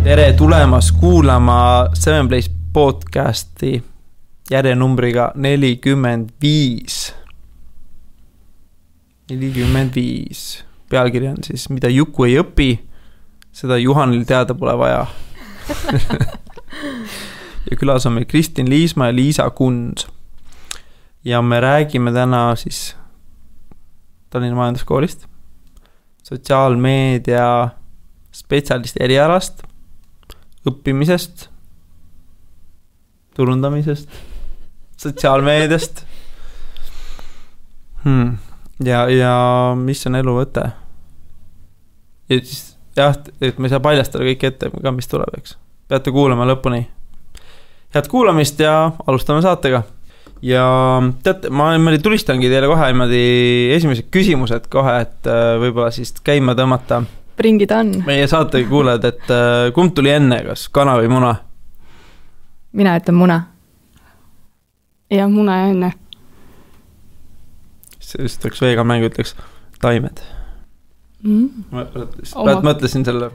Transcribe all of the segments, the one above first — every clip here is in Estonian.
Tere tulemas kuulama Seven Place podcasti järjenumbriga 45. Pealkiri on siis, mida Juku ei õpi, seda Juhanil teada pole vaja. Ja külas on meil Kristin Liisma ja Liisa Kunz. Ja me räägime täna siis Tallinna Majanduskoolist, sotsiaalmeedia spetsialisti erialast, õppimisest, turundamisest, sotsiaalmeediast. Ja mis on elu võte? Ja siis, jah, et me ei saa paljastada kõik ette, ka mis tuleb, eks. Peate kuulama lõpuni. Head kuulamist ja alustame saatega. Ja teate, ma tulistangi teile kohe esimesed küsimused kohe, et võib-olla siis käima tõmmata. Bring it on. Meie saatega kuuled, et kumb tuli enne, kas kana või muna? Mina ütlen muna. Ja muna ja enne. Siis ütleks veega mängu, ütleks taimed. Mõtlesin selle.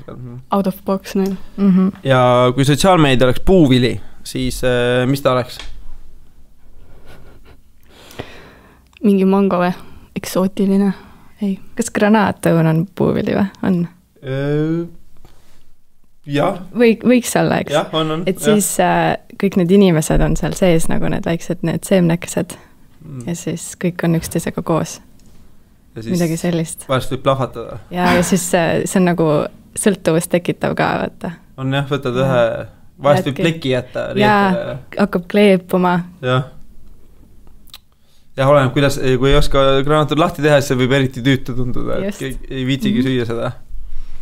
Out of box neil. Ja kui sotsiaalmeedia oleks puuvili, siis mis ta oleks? Mingi mango või? Eksootiline. Ei. Kas granaatõun on puuvili või? On? Jah. Võiks olla, eks? Jah, on. Et siis kõik need inimesed on seal sees nagu need väiksed, need seemnekesed. Ja siis kõik on üksteisega koos. Midagi sellist. Vahest võib plahvatada. Ja siis see on nagu sõltuvust tekitav ka, vaata. On jah, võtad ühe, vahest võib pleki jätta. Ja hakkab kleepuma. Jah. Ja oleneb, kuidas, kui ei oska granaatud lahti teha, siis võib eriti tüütu tunduda, et ei viitsigi süüa seda.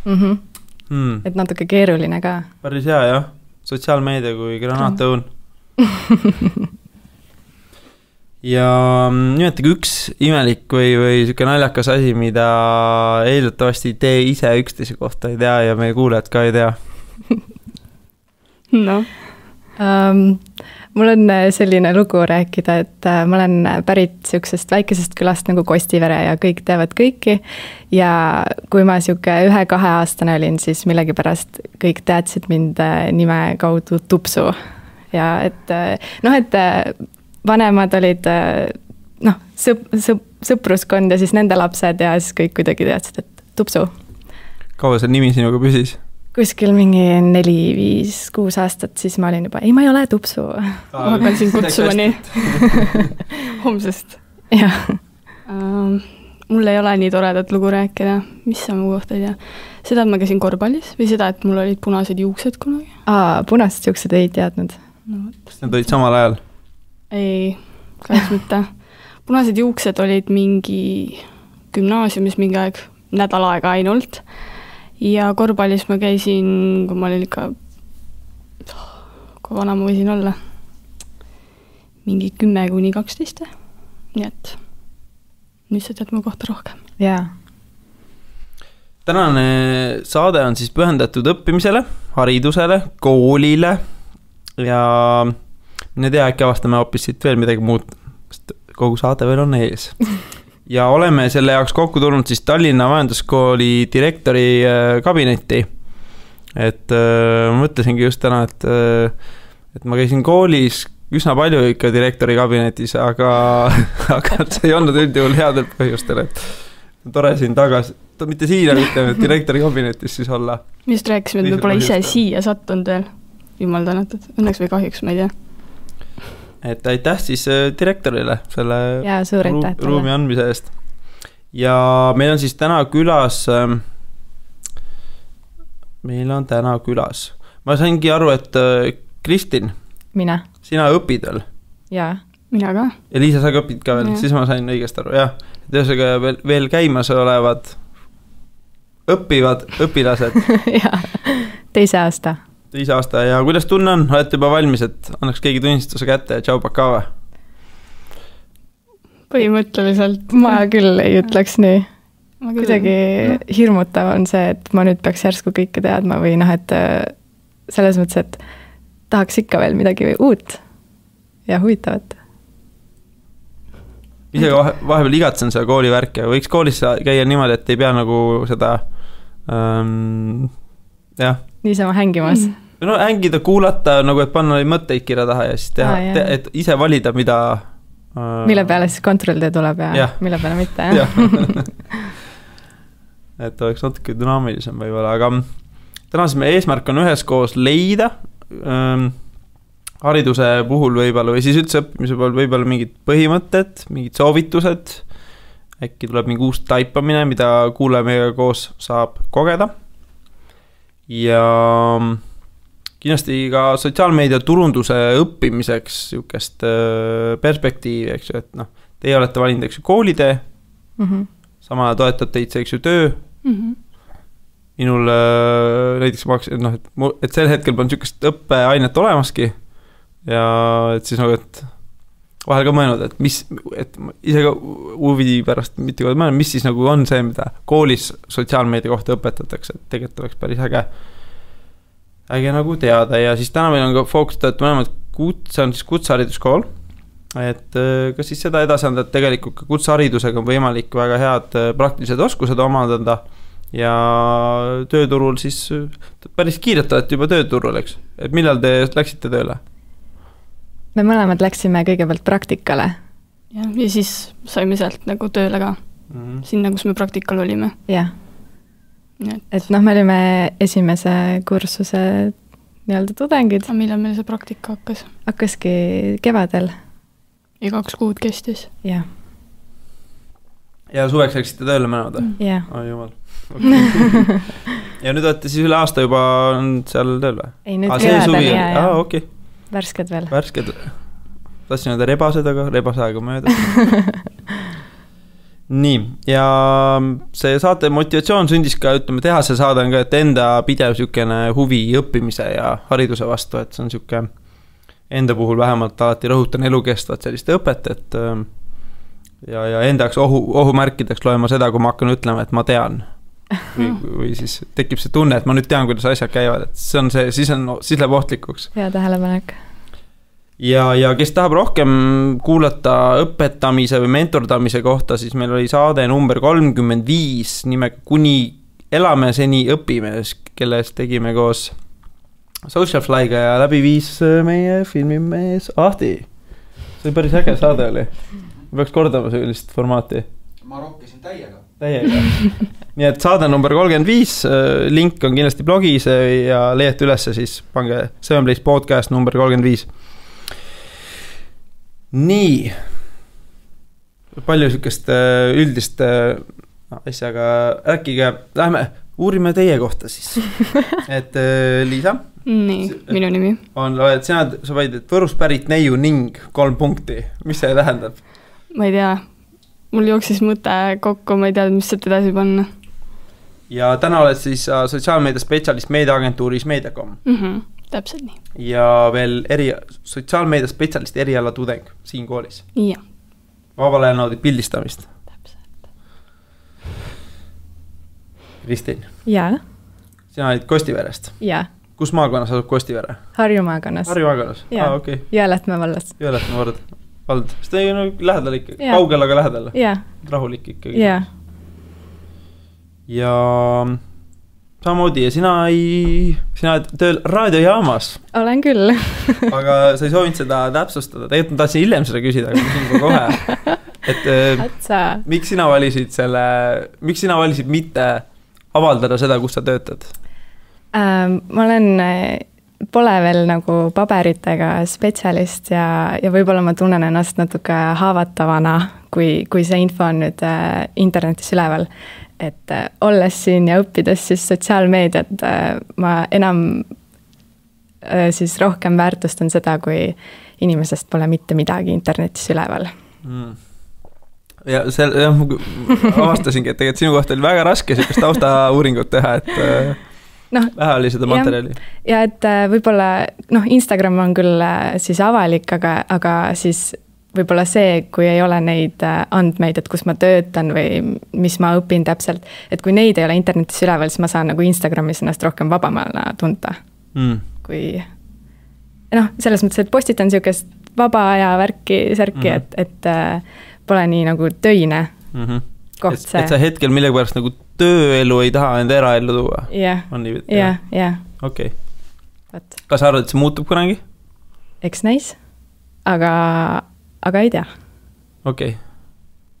Et natuke keeruline ka. Päris hea, jah. Sotsiaalmeedia kui granaatõun. Ja nimetage üks imelik või siuke naljakas asi, mida eeldatavasti te ise üksteise kohta ei tea ja meie kuulajad ka ei tea. No. Mul on selline lugu rääkida, et ma olen pärit siuksest väikesest külast nagu Kostivere ja kõik teavad kõiki. Ja kui ma siuke 1-2 aastane olin, siis millegipärast kõik teadsid mind nime kaudu Tupsu. Ja et vanemad olid sõpruskond ja siis nende lapsed ja siis kõik kuidagi teadsid, et Tupsu. Kaua see nimi sinuga püsis? Kuskil mingi 4-5-6 aastat, siis ma olin juba, ei, ma ei ole Tupsu. Ma hakkan siin kutsuma nii. Homsest. Jah. Mul ei ole nii toredat lugu rääkida. Mis sa mu kohta ei tea? Seda, et ma käisin korvpallis või seda, et mul olid punased juuksed kunagi? Punased juuksed ei teadnud. Kas need olid samal ajal? Ei, kahjuks mitte. Punased juuksed olid mingi gümnaasiumis mingi aeg, nädal aega ainult. Ja korvpallis ma käisin, kui ma olin ikka, kui vana ma võisin olla, mingi 10-12. Nii et nüüd sa tead mu kohta rohkem. Jaa. Tänane saade on siis pühendatud õppimisele, haridusele, koolile ja mine tea, äkki avastame hoopis siit veel midagi muud, sest kogu saade veel on ees. Ja oleme selle jaoks kokku tulnud siis Tallinna Majanduskooli direktori kabinetti. Et mõtlesingi just täna, et ma käisin koolis üsna palju ikka direktori kabinetis, aga see ei olnud üldjuhul headel põhjustel, et tore siin tagasi, mitte siin, aga direktori kabinetis siis olla. Me just rääkisime, et me pole ise siia sattunud veel, jumal tänatud, õnneks või kahjuks, ma ei tea. Et aitäh siis direktorile selle ruumi andmise eest. Ja meil on siis täna külas, ma saingi aru, et Kristin, mina. Sina õpid veel? Jaa. Mina ka. Ja Liisa, sa ka õpid ka veel, siis ma sain õigest aru, jah. Tõesega veel käimas olevad õppivad õpilased. Jaa, teise aasta. Ja kuidas tunne on? Olete juba valmis, et annaks keegi tunnistuse kätte ja tšau pakava? Põhimõtteliselt. Ma küll ei ütleks nii. Kuidagi hirmutav on see, et ma nüüd peaks järsku kõike teadma või et selles mõttes, et tahaks ikka veel midagi uut ja huvitavat. Ise vahepeal igatsen seda koolivärki, aga võiks koolis käia niimoodi, et ei pea nagu seda jah. Niisama hängimas. No hängida, kuulata, nagu et panna mõtteid kirja taha ja siis teha, et ise valida, mida mille peale siis kontrolltöö tuleb ja mille peale mitte, jah. Et oleks natuke dünaamilisem võib-olla, aga täna siis meie eesmärk on üheskoos leida hariduse puhul võib-olla või siis üldse õppimise puhul võib-olla mingid põhimõtted, mingid soovitused, äkki tuleb mingi uus taipamine, mida kuulaja meiega koos saab kogeda ja kindlasti ka sotsiaalmeedia turunduse õppimiseks niisugust perspektiivi, eks ju, et noh, teie olete valinud, eks ju, koolitee, sama toetab teid see, eks ju, töö. Minul näiteks et sel hetkel on niisugust õppeainet olemaski ja et siis nagu, et vahel ka mõelnud, et ise ka huvi pärast mitte kood mõelnud, mis siis nagu on see, mida koolis sotsiaalmeedia kohta õpetatakse, et tegelikult oleks päris äge nagu teada ja siis täna meil on ka fookustatud mõlemad see on siis kutsehariduskool, et kas siis seda edasi anda, et tegelikult ka kutseharidusega on võimalik väga head praktilised oskused omandada ja tööturul siis päris kiirelt olete juba tööturul, eks? Et millal te läksite tööle? Me mõlemad läksime kõigepealt praktikale. Ja siis saime sealt nagu tööle ka. Sinna, kus me praktikal olime. Jah. Et noh, me olime esimese kursuse nii-öelda tudengid. Millal meil see praktika hakkas? Hakkaski kevadel. Ja 2 kuud kestis. Jah. Ja suveks läksite tööle mõlemad? Jah. Jumal. Okay. Ja nüüd olete siis üle aasta juba seal tööl või? Ei, nüüd kevadel, okei. Värsked veel. Värsked. Tahtsin öelda rebased, aga rebase aega mööda. Nii, ja see saate motivatsioon sündis ka, ütleme, teha see saade on ka, et enda pidev niisugune huvi õppimise ja hariduse vastu, et see on niisugune enda puhul vähemalt alati rõhutan elukestvat sellist õpet, et ja enda jaoks ohumärkideks loema seda, kui ma hakkan ütlema, et ma tean. Või siis tekib see tunne, et ma nüüd tean, kuidas asjad käivad, et see on see, siis läheb ohtlikuks. Hea tähelepanek. Ja kes tahab rohkem kuulata õpetamise või mentordamise kohta, siis meil oli saade number 35 nimega Kuni elame, seni õpime, kellest tegime koos Socialflyga ja läbi viis meie filmimees Ahti. See oli päris äge saade oli. Peaks kordama sellist formaati. Ma rokkisin täiega. Nii et saade number 35, link on kindlasti blogis ja leiate ülesse, siis pange Sevenplace podcast number 35. Nii, palju niisugust üldist asjaga rääkige, lähme uurime teie kohta siis. Et Liisa? Nii, minu nimi. Sa vaid, et Võrust pärit neiu ning 3 punkti. Mis see tähendab? Ma ei tea. Mul jooksis mõte kokku, ma ei tea, mis sealt edasi panna. Ja täna oled siis sotsiaalmeedia spetsialist meediaagentuuris Mediacom. Täpselt nii. Ja veel sotsiaalmeedia spetsialist eriala tudeng siin koolis. Ja. Vabal ajal naudid pildistamist. Täpselt. Kristin. Ja. Sina olid Kostiverest. Ja. Kus maakonnas asub Kostivere? Harju maakonnas. Harju maakonnas? Okay. Jõelähtme vallas. Jõelähtme vald. Sest ei ole lähedal ikka, kaugel aga lähedal. Rahulik ikkagi. Ja samamoodi ja sina oled tööl raadiojaamas. Olen küll. Aga sa ei soovinud seda täpsustada. Tegelikult ma tahtsin hiljem seda küsida, aga küsin ka kohe. Et miks sina valisid mitte avaldada seda, kus sa töötad? Ma olen pole veel nagu paberitega spetsialist ja võib-olla ma tunnen ennast natuke haavatavana, kui see info on nüüd internetis üleval. Et olles siin ja õppides siis sotsiaalmeediat, ma enam siis rohkem väärtustan seda, kui inimesest pole mitte midagi internetis üleval. Ja avastasingi, et tegelikult sinu kohta oli väga raske sellist taustauuringut teha, et vähe oli seda materjali. Ja et võib-olla, Instagram on küll siis avalik, aga siis võib-olla see, kui ei ole neid andmeid, et kus ma töötan või mis ma õpin täpselt, et kui neid ei ole internetis üleval, siis ma saan nagu Instagramis ennast rohkem vabamana tunta. Kui noh, selles mõttes, et postitan niisugust vaba aja särki, et pole nii nagu töine koht see. Et sa hetkel millegi pärast nagu tööelu ei taha enda eraellu tuua? Jah. Okei. Kas sa arvad, et see muutub kunagi? Eks näis, aga ei tea. Okei.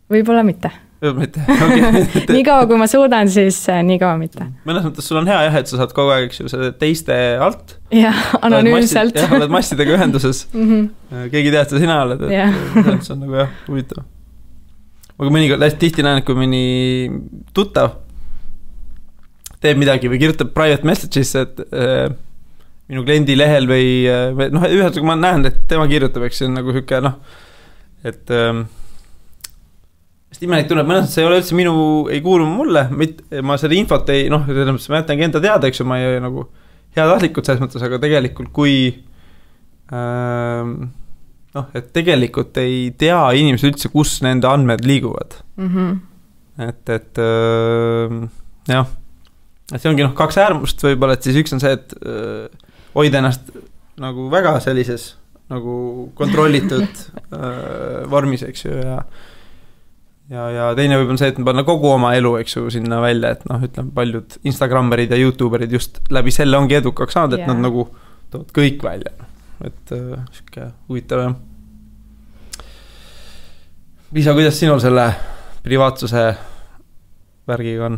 Võib-olla mitte. Mitte. Nii kaua, kui ma suudan, siis nii kaua mitte. Mõnes mõttes sul on hea jah, et sa saad kogu aeg selle teiste alt. Jah, anonüümselt. Jah, oled massidega ühenduses. Keegi tead, sa sina oled, et see on nagu jah, huvitav. Aga mõnikord hästi tihti näen, kui mõni tuttav teeb midagi või kirjutab private message'isse, et minu kliendi lehel või noh, ühesõnaga ma näen, et tema kirjutab, eks see on nagu siuke noh, et sest imelik tunneb, mõnes, et see ei ole üldse ei kuulu mulle, ma selle infot ei, noh, ma jätangi enda teada, eks ju, ma ei nagu heatahtlikult selles mõttes, aga tegelikult kui noh, et tegelikult ei tea inimesed üldse, kus nende andmed liiguvad. Et jah, et see ongi noh, 2 äärmust võib-olla, et siis üks on see, et hoida ennast nagu väga sellises nagu kontrollitud vormis, eks ju, ja teine võib-olla see, et panna kogu oma elu, eks ju, sinna välja, et noh, ütleme, paljud Instagrammerid ja YouTuberid just läbi selle ongi edukaks saanud, et nad nagu toovad kõik välja, et siuke huvitav jah. Liisa, kuidas sinul selle privaatsuse värgiga on?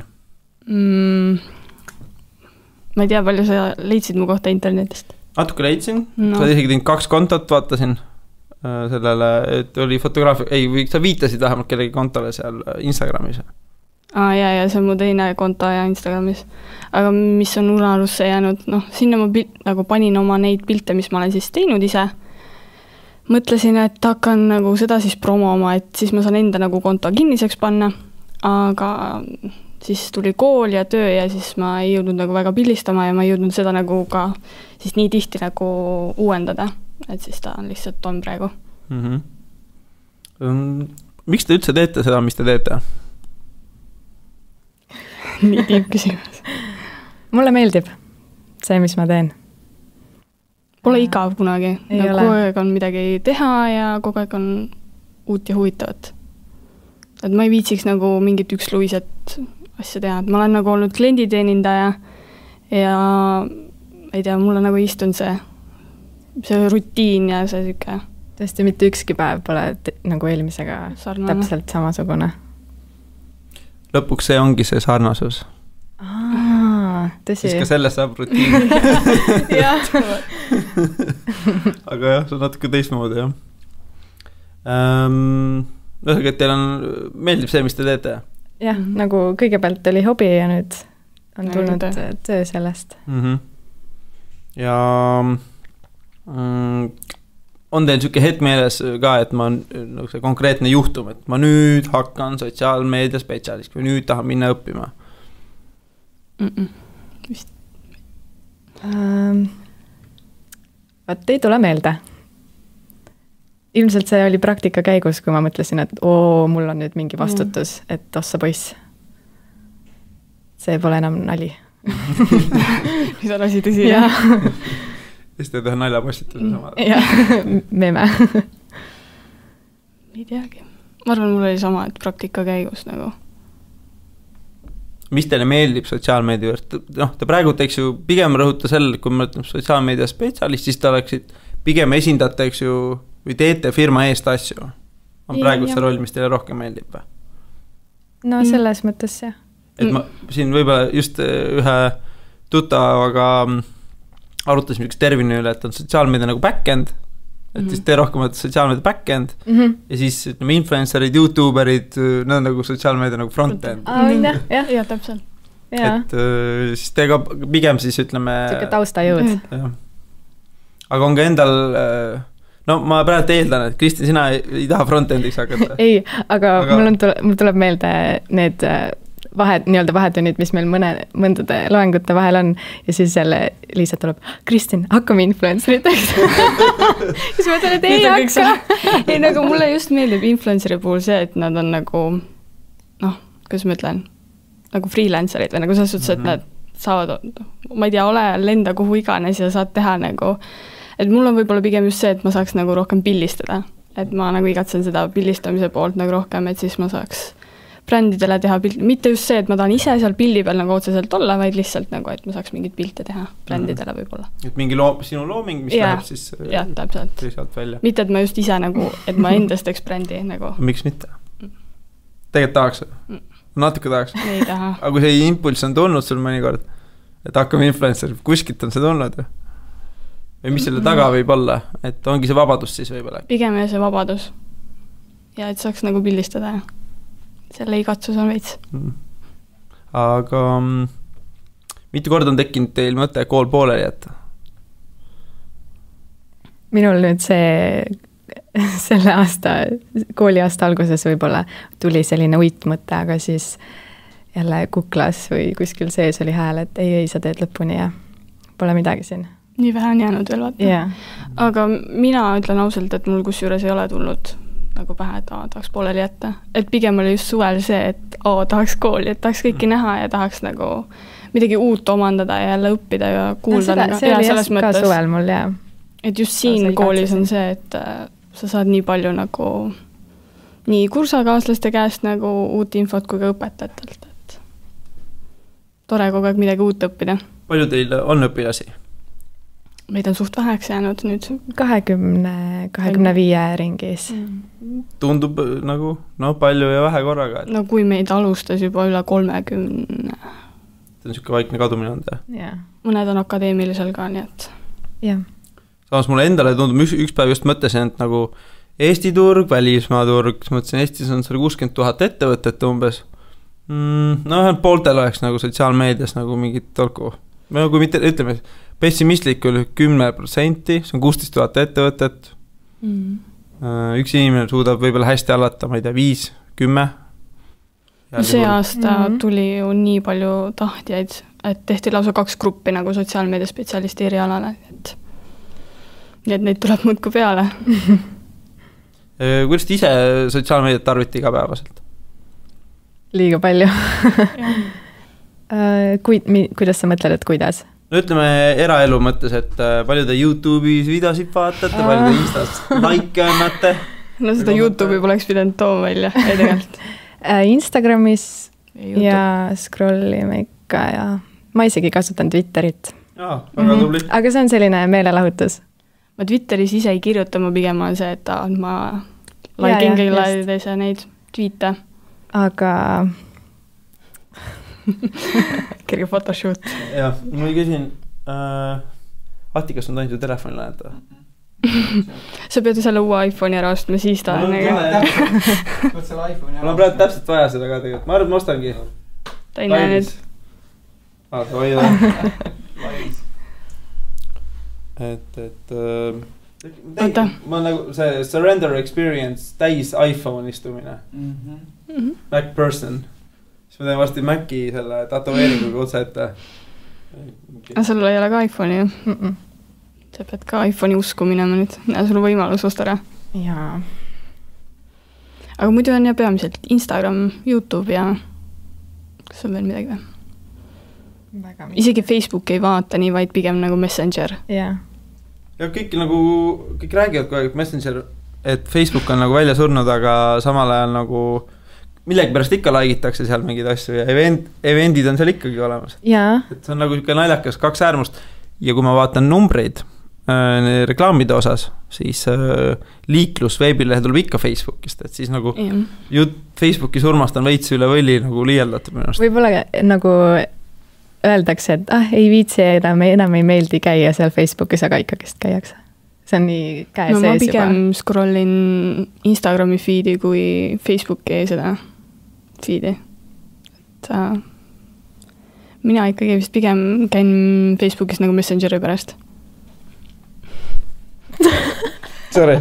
Ma ei tea, palju sa leidsid mu kohta internetist? Natuke leidsin, sa oled isegi teinud 2 kontot, vaatasin sellele, et oli fotograafia, või sa viitasid vähemalt kellegi kontole seal Instagramis. Ja see on mu teine konto ja Instagramis. Aga mis on unarusse jäänud, noh, sinna ma nagu panin oma neid pilte, mis ma olen siis teinud ise. Mõtlesin, et hakkan nagu seda siis promoma, et siis ma saan enda nagu konto kinniseks panna, aga siis tuli kool ja töö ja siis ma ei jõudnud nagu väga pildistama ja ma ei jõudnud seda nagu ka siis nii tihti nagu uuendada, et siis ta on lihtsalt on praegu. Miks te üldse teete seda, mis te teete? Nii tiib küsimus. Mulle meeldib see, mis ma teen. Pole igav kunagi. Kogu aeg on midagi teha ja kogu aeg on uut ja huvitavat. Et ma ei viitsiks nagu mingit üksluiset asja teha. Ma olen nagu olnud klienditeenindaja ja ei tea, mulle nagu istunud see rutiin ja see siuke. Tõesti, mitte ükski päev pole nagu eelmisega sarnane. Täpselt samasugune. Lõpuks see ongi see sarnasus. Tõsi. Siis ka sellest saab rutiin. Aga jah, see on natuke teistmoodi, jah. Ühesõnaga, et teil meeldib see, mis te teete? Jah, nagu kõigepealt oli hobi ja nüüd on tulnud töö sellest. Ja on teil siuke hetk meeles ka, et ma nagu see konkreetne juhtum, et ma nüüd hakkan sotsiaalmeedia spetsialist või nüüd tahan minna õppima? Vist. Vaat ei tule meelde. Ilmselt see oli praktika käigus, kui ma mõtlesin, et mul on nüüd mingi vastutus, et ossa poiss. See pole enam nali. Mis on asi tõsi? Ja. Siis te teha naljapostituse sama. Jah, meme. Ei teagi. Ma arvan, mul oli sama, et praktika käigus nagu. Mis teile meeldib sotsiaalmeedia juurde? Noh, te praegu eks ju pigem rõhuta selle, kui me ütleme sotsiaalmeedia spetsialist, siis te oleksid pigem esindate, eks ju, või teete firma eest asju. On praegu see roll, mis teile rohkem meeldib? No selles mõttes, jah. Et ma siin võib-olla just ühe tuttavaga arutasime üks termini üle, et on sotsiaalmeedia nagu back-end, et siis te rohkem olete sotsiaalmeedia back-end ja siis ütleme influencerid, youtuberid, need on nagu sotsiaalmeedia nagu front-end. Ja, täpselt. Et siis te ka pigem siis ütleme Siuke taustajõud. Aga on ka endal no ma praegu eeldan, et Kristin, sina ei taha front-endiks hakata. Ei, aga mul tuleb meelde need nii-öelda vahetunnid, mis meil mõndade loengute vahel on ja siis jälle Liisa tuleb, Kristin, hakkame influenceriteks. Siis ma ütlen, et ei hakka. Ei, nagu mulle just meeldib influenceri puhul see, et nad on nagu noh, kuidas ma ütlen, nagu freelancerid või nagu selles suhtes, et nad saavad, ma ei tea, lenda kuhu iganes ja saad teha nagu et mul on võib-olla pigem just see, et ma saaks nagu rohkem pildistada, et ma nagu igatsen seda pildistamise poolt nagu rohkem, et siis ma saaks brändidele teha pilt, mitte just see, et ma tahan ise seal pildi peal nagu otseselt olla, vaid lihtsalt nagu, et ma saaks mingit pilte teha brändidele võib-olla. Et mingi sinu looming, mis läheb siis täpselt. Välja. Mitte, et ma just ise nagu, et ma endast teeks brändi nagu. Miks mitte? Tegelikult tahaks? Natuke tahaks? Ei taha. Aga kui see impulss on tulnud sul mõnikord, et hakkame influencer, kuskilt on see tulnud või mis selle taga võib olla, et ongi see vabadus siis võib-olla? Pigem see vabadus ja et saaks nagu pildistada selle igatsus on veits. Aga mitu korda on tekkinud teil mõte kool pooleli jätta? Minul nüüd selle aasta, kooliaasta alguses võib-olla tuli selline uitmõte, aga siis jälle kuklas või kuskil sees oli hääl, et ei, sa teed lõpuni ja pole midagi siin. Nii vähe on jäänud veel vaata. Yeah. Aga mina ütlen ausalt, et mul kusjuures ei ole tulnud nagu pähe, et tahaks pooleli jätta. Et pigem oli just suvel see, et tahaks kooli, et tahaks kõiki näha ja tahaks nagu midagi uut omandada ja jälle õppida ja kuulda. See oli ka suvel mul, jah. Et just siin koolis on see, et sa saad nii palju nagu nii kursakaaslaste käest nagu uut infot kui ka õpetajatelt, et tore kogu aeg midagi uut õppida. Palju teil on õpilasi? Meid on suht väheks jäänud nüüd. 25 ringis. Tundub nagu palju ja vähe korraga. No kui meid alustas juba üle 30. See on siuke vaikne kadumine on ta. Yeah. Mõned on akadeemilisel ka, nii et. Yeah. Samas mulle endale tundub, üks päev just mõtlesin, et nagu Eesti turg, välismaa turg, mõtlesin, Eestis on 60 000 ettevõtet umbes. Pooltel oleks nagu sotsiaalmeedias nagu mingit tolku. Kui mitte, ütleme, pessimistlikul 10%, see on 16 000 ettevõtet. Üks inimene suudab võib-olla hästi allata, ma ei tea, 5, 10. See aasta tuli ju nii palju tahtjaid, et tehti lausa 2 gruppi nagu sotsiaalmeedia spetsialisti erialale, et neid tuleb muudku peale. Kuidas te ise sotsiaalmeediat tarvite igapäevaselt? Liiga palju. Kuidas sa mõtled, et kuidas? No ütleme eraelu mõttes, et palju te YouTube'is videosid vaatate, palju te Instas like annate? No seda YouTube'i poleks pidanud tooma välja, ei tegelikult. Instagramis ja scrollime ikka ja ma isegi kasutan Twitterit. Väga tubli. Aga see on selline meelelahutus. Ma Twitteris ise ei kirjuta, ma pigem on see, et ma like-in kõigile neid tweete. Aga kerge photoshoot. Jah, ma küsin, Ati, kas on tainud ju telefonile näeta? Sa pead ju selle uue iPhone'i ära ostma, siis ta on mul on praegu täpselt vaja seda ka tegelikult, ma arvan, et ma ostangi. Ta ei näe nüüd. Ma nagu see surrender experience täis iPhone istumine. Mac person. Siis ma teen varsti Maci selle tatoveeringuga otse ette. Aga sul ei ole ka iPhone'i ju? Sa pead ka iPhone'i usku minema nüüd. Ja sul on võimalus osta ära. Jaa. Aga muidu on ja peamiselt Instagram, YouTube ja kas on veel midagi või? Isegi Facebook ei vaata nii, vaid pigem nagu Messenger. Jaa. Ja kõik räägivad kogu aeg Messenger, et Facebook on nagu välja surnud, aga samal ajal nagu millegi pärast ikka laigitakse seal mingid asju ja eventid on seal ikkagi olemas. Jaa. Et see on nagu naljakas 2 äärmust ja kui ma vaatan numbreid reklaamide osas, siis liiklus veebilehe tuleb ikka Facebookist, et siis nagu Facebooki surmast on veits üle võlli nagu liialdatud minu arust. Võib-olla nagu öeldakse, et ei viitsi enam ei meeldi käia seal Facebookis, aga ikkagist käiakse. See on nii käe sees juba. Ma pigem scrollin Instagrami feedi kui Facebooki seda feedi. Mina ikkagi vist pigem käin Facebookis nagu Messengeri pärast. Sorry.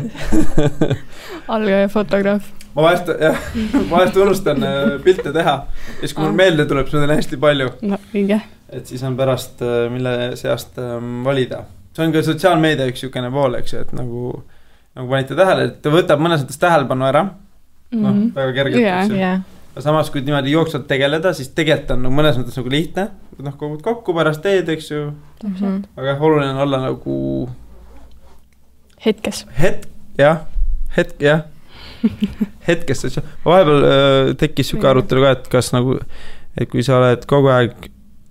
Algaja fotograaf. Ma vahest unustan pilte teha. Ja siis kui mul meelde tuleb, siis ma teen hästi palju. No, õige. Et siis on pärast, mille seast valida. See on ka sotsiaalmeedia üks jukene pool, eks ju, et nagu panite tähele, et ta võtab mõnes mõttes tähelepanu ära. Väga kergelt, eks ju. Ja samas, kui niimoodi jooksvalt tegeleda, siis tegelikult on mõnes mõttes nagu lihtne. Kogud kokku pärast teed, eks ju. Aga oluline on olla nagu Hetkes. Jah. Hetkes. Vahepeal tekkis siuke arutelu ka, et kas nagu, et kui sa oled kogu aeg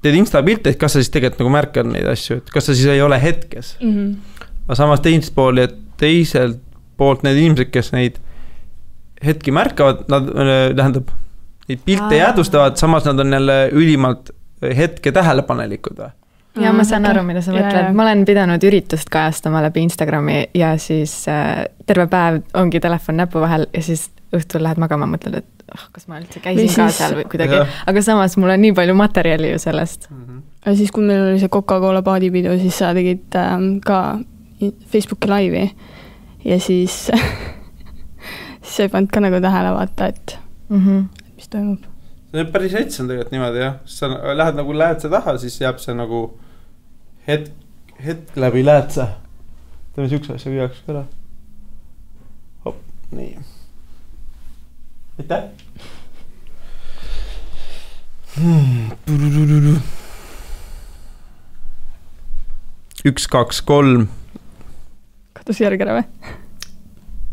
teed Insta-pilte, et kas sa siis tegelikult nagu märkad neid asju, et kas sa siis ei ole hetkes. Aga samas teiselt poolt need inimesed, kes neid hetki märkavad, nad tähendab, neid pilte jäädustavad, samas nad on jälle ülimalt hetke tähelepanelikud või? Ja ma saan aru, mida sa mõtled. Ma olen pidanud üritust kajastama läbi Instagrami ja siis terve päev ongi telefon näpu vahel ja siis õhtul lähed magama, mõtled, et kas ma üldse käisin ka seal või kuidagi. Aga samas mul on nii palju materjali ju sellest. Ja siis, kui meil oli see Coca-Cola paadipidu, siis sa tegid ka Facebooki laivi ja siis sa ei pannud ka nagu tähele vaata, et mis toimub. See on päris hets on tegelikult niimoodi, jah. Sa lähed see taha, siis jääb see nagu hetk läbi lähed sa. Teeme siukse asja viiaks ka ära. Hop, nii. Aitäh! 1, 2, 3. Kadus järg ära või?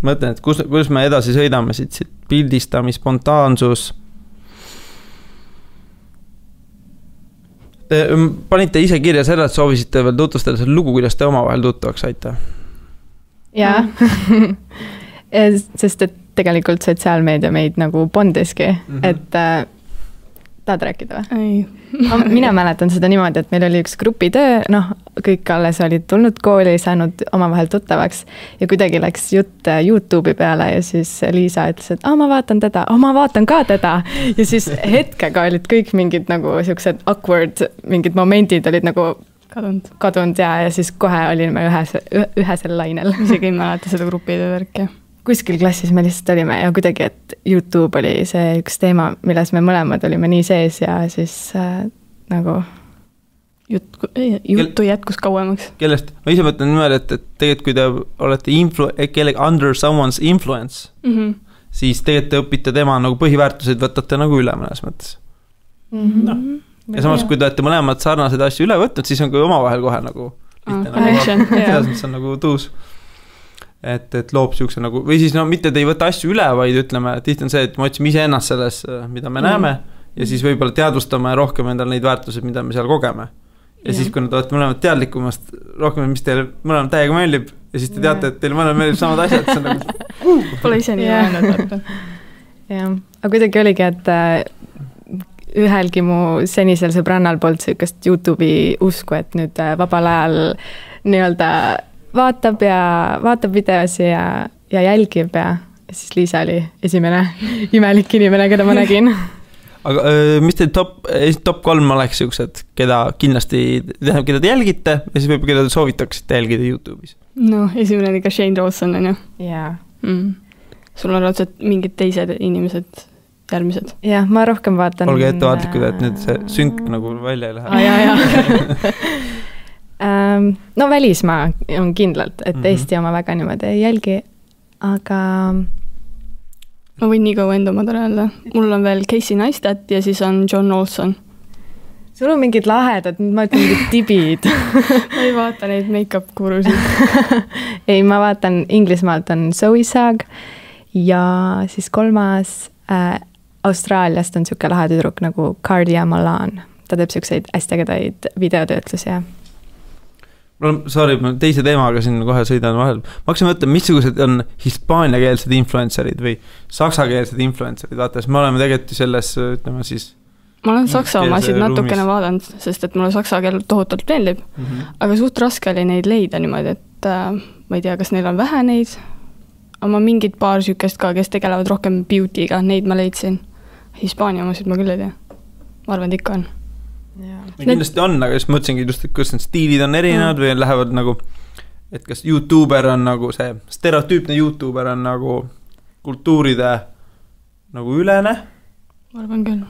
Mõtlen, et kus me edasi sõidame siit pildistami, spontaansus. Te panite ise kirja selle, et soovisite veel tutvustada selle lugu, kuidas te omavahel tuttavaks saite. Jaa, sest et tegelikult sotsiaalmeedia meid nagu bondiski, et tahad rääkida või? Ei. Mina mäletan seda niimoodi, et meil oli üks grupitöö, kõik alles olid tulnud kooli, saanud omavahel tuttavaks ja kuidagi läks jutt YouTube'i peale ja siis Liisa ütles, et ma vaatan teda, ma vaatan ka teda ja siis hetkega olid kõik mingid nagu siuksed awkward, mingid momendid olid nagu kadunud ja siis kohe olime ühesel lainel. Isegi ei mäleta seda grupitöö värki. Kuskil klassis me lihtsalt olime ja kuidagi, et YouTube oli see üks teema, milles me mõlemad olime nii sees ja siis nagu juttu jätkus kauemaks. Kellest? Ma ise mõtlen niimoodi, et tegelikult kui te olete under someone's influence, siis tegelikult te õpite tema nagu põhiväärtuseid, võtate nagu üle mõnes mõttes. Ja samas, kui te olete mõlemad sarnased asju üle võtnud, siis on kui omavahel kohe nagu selles mõttes on nagu tuus. Et loob siukse nagu, või siis mitte te ei võta asju üle, vaid ütleme, tihti on see, et me otsime ise ennast selles, mida me näeme ja siis võib-olla teadvustame rohkem endal neid väärtused, mida me seal kogeme. Ja siis, kui nad olete mõlemad teadlikumast rohkem, mis teile mõlemad täiega meeldib ja siis te teate, et teile mõlemad meeldib samad asjad, see on nagu Pole ise nii öelnud. Jah, aga kuidagi oligi, et ühelgi mu senisel sõbrannal polnud sükast YouTube'i usku, et nüüd vabal ajal nii-öelda vaatab videosi ja jälgib ja siis Liisa oli esimene imelik inimene, keda ma nägin. Aga mis teil top 3 oleks siuksed, keda kindlasti, keda te jälgite ja siis võib-olla keda te soovitaksite jälgida YouTube'is? Esimene oli ka Shane Dawson, on ju? Jaa. Sul on raudselt mingid teised inimesed järgmised? Jah, ma rohkem vaatan... Olge ettevaatlikud, et nüüd see synk nagu välja ei lähe. Jaa. No välismaa on kindlalt, et Eesti oma väga niimoodi ei jälgi, aga... Ma võin nii kaua enda omad öelda. Mul on veel Casey Neistat ja siis on John Olson. Sul on mingid lahedad, ma ütlen mingid tibid. Ma ei vaata neid make-up kurusid. Ei, ma vaatan Inglismaalt on Zoe Sag ja siis 3. Austraaliast on siuke lahe tüdruk nagu Cardia Malan. Ta teeb siukseid hästi ägedaid videotöötlusi ja Sorry, ma teise teemaga siin kohe sõidan vahel. Ma hakkasin mõtlen, missugused on hispaaniakeelsed influencerid või saksakeelsed influencerid. Vaata, me oleme tegelikult selles, ütleme siis... Ma olen saksa omasid natukene vaadanud, sest et mulle saksa keel tohutult meeldib. Aga suht raske oli neid leida niimoodi, et ma ei tea, kas neil on vähe neid. Aga ma mingid paar sükest ka, kes tegelevad rohkem beauty'ga, neid ma leidsin. Hispaania omasid ma küll ei tea. Ma arvan, et ikka on. Kindlasti on, aga siis mõtlesingi just, et kus need stiilid on erinevad või lähevad nagu, et kas YouTuber on nagu see stereotüüpne YouTuber on nagu kultuuride nagu ülene. Ma arvan küll.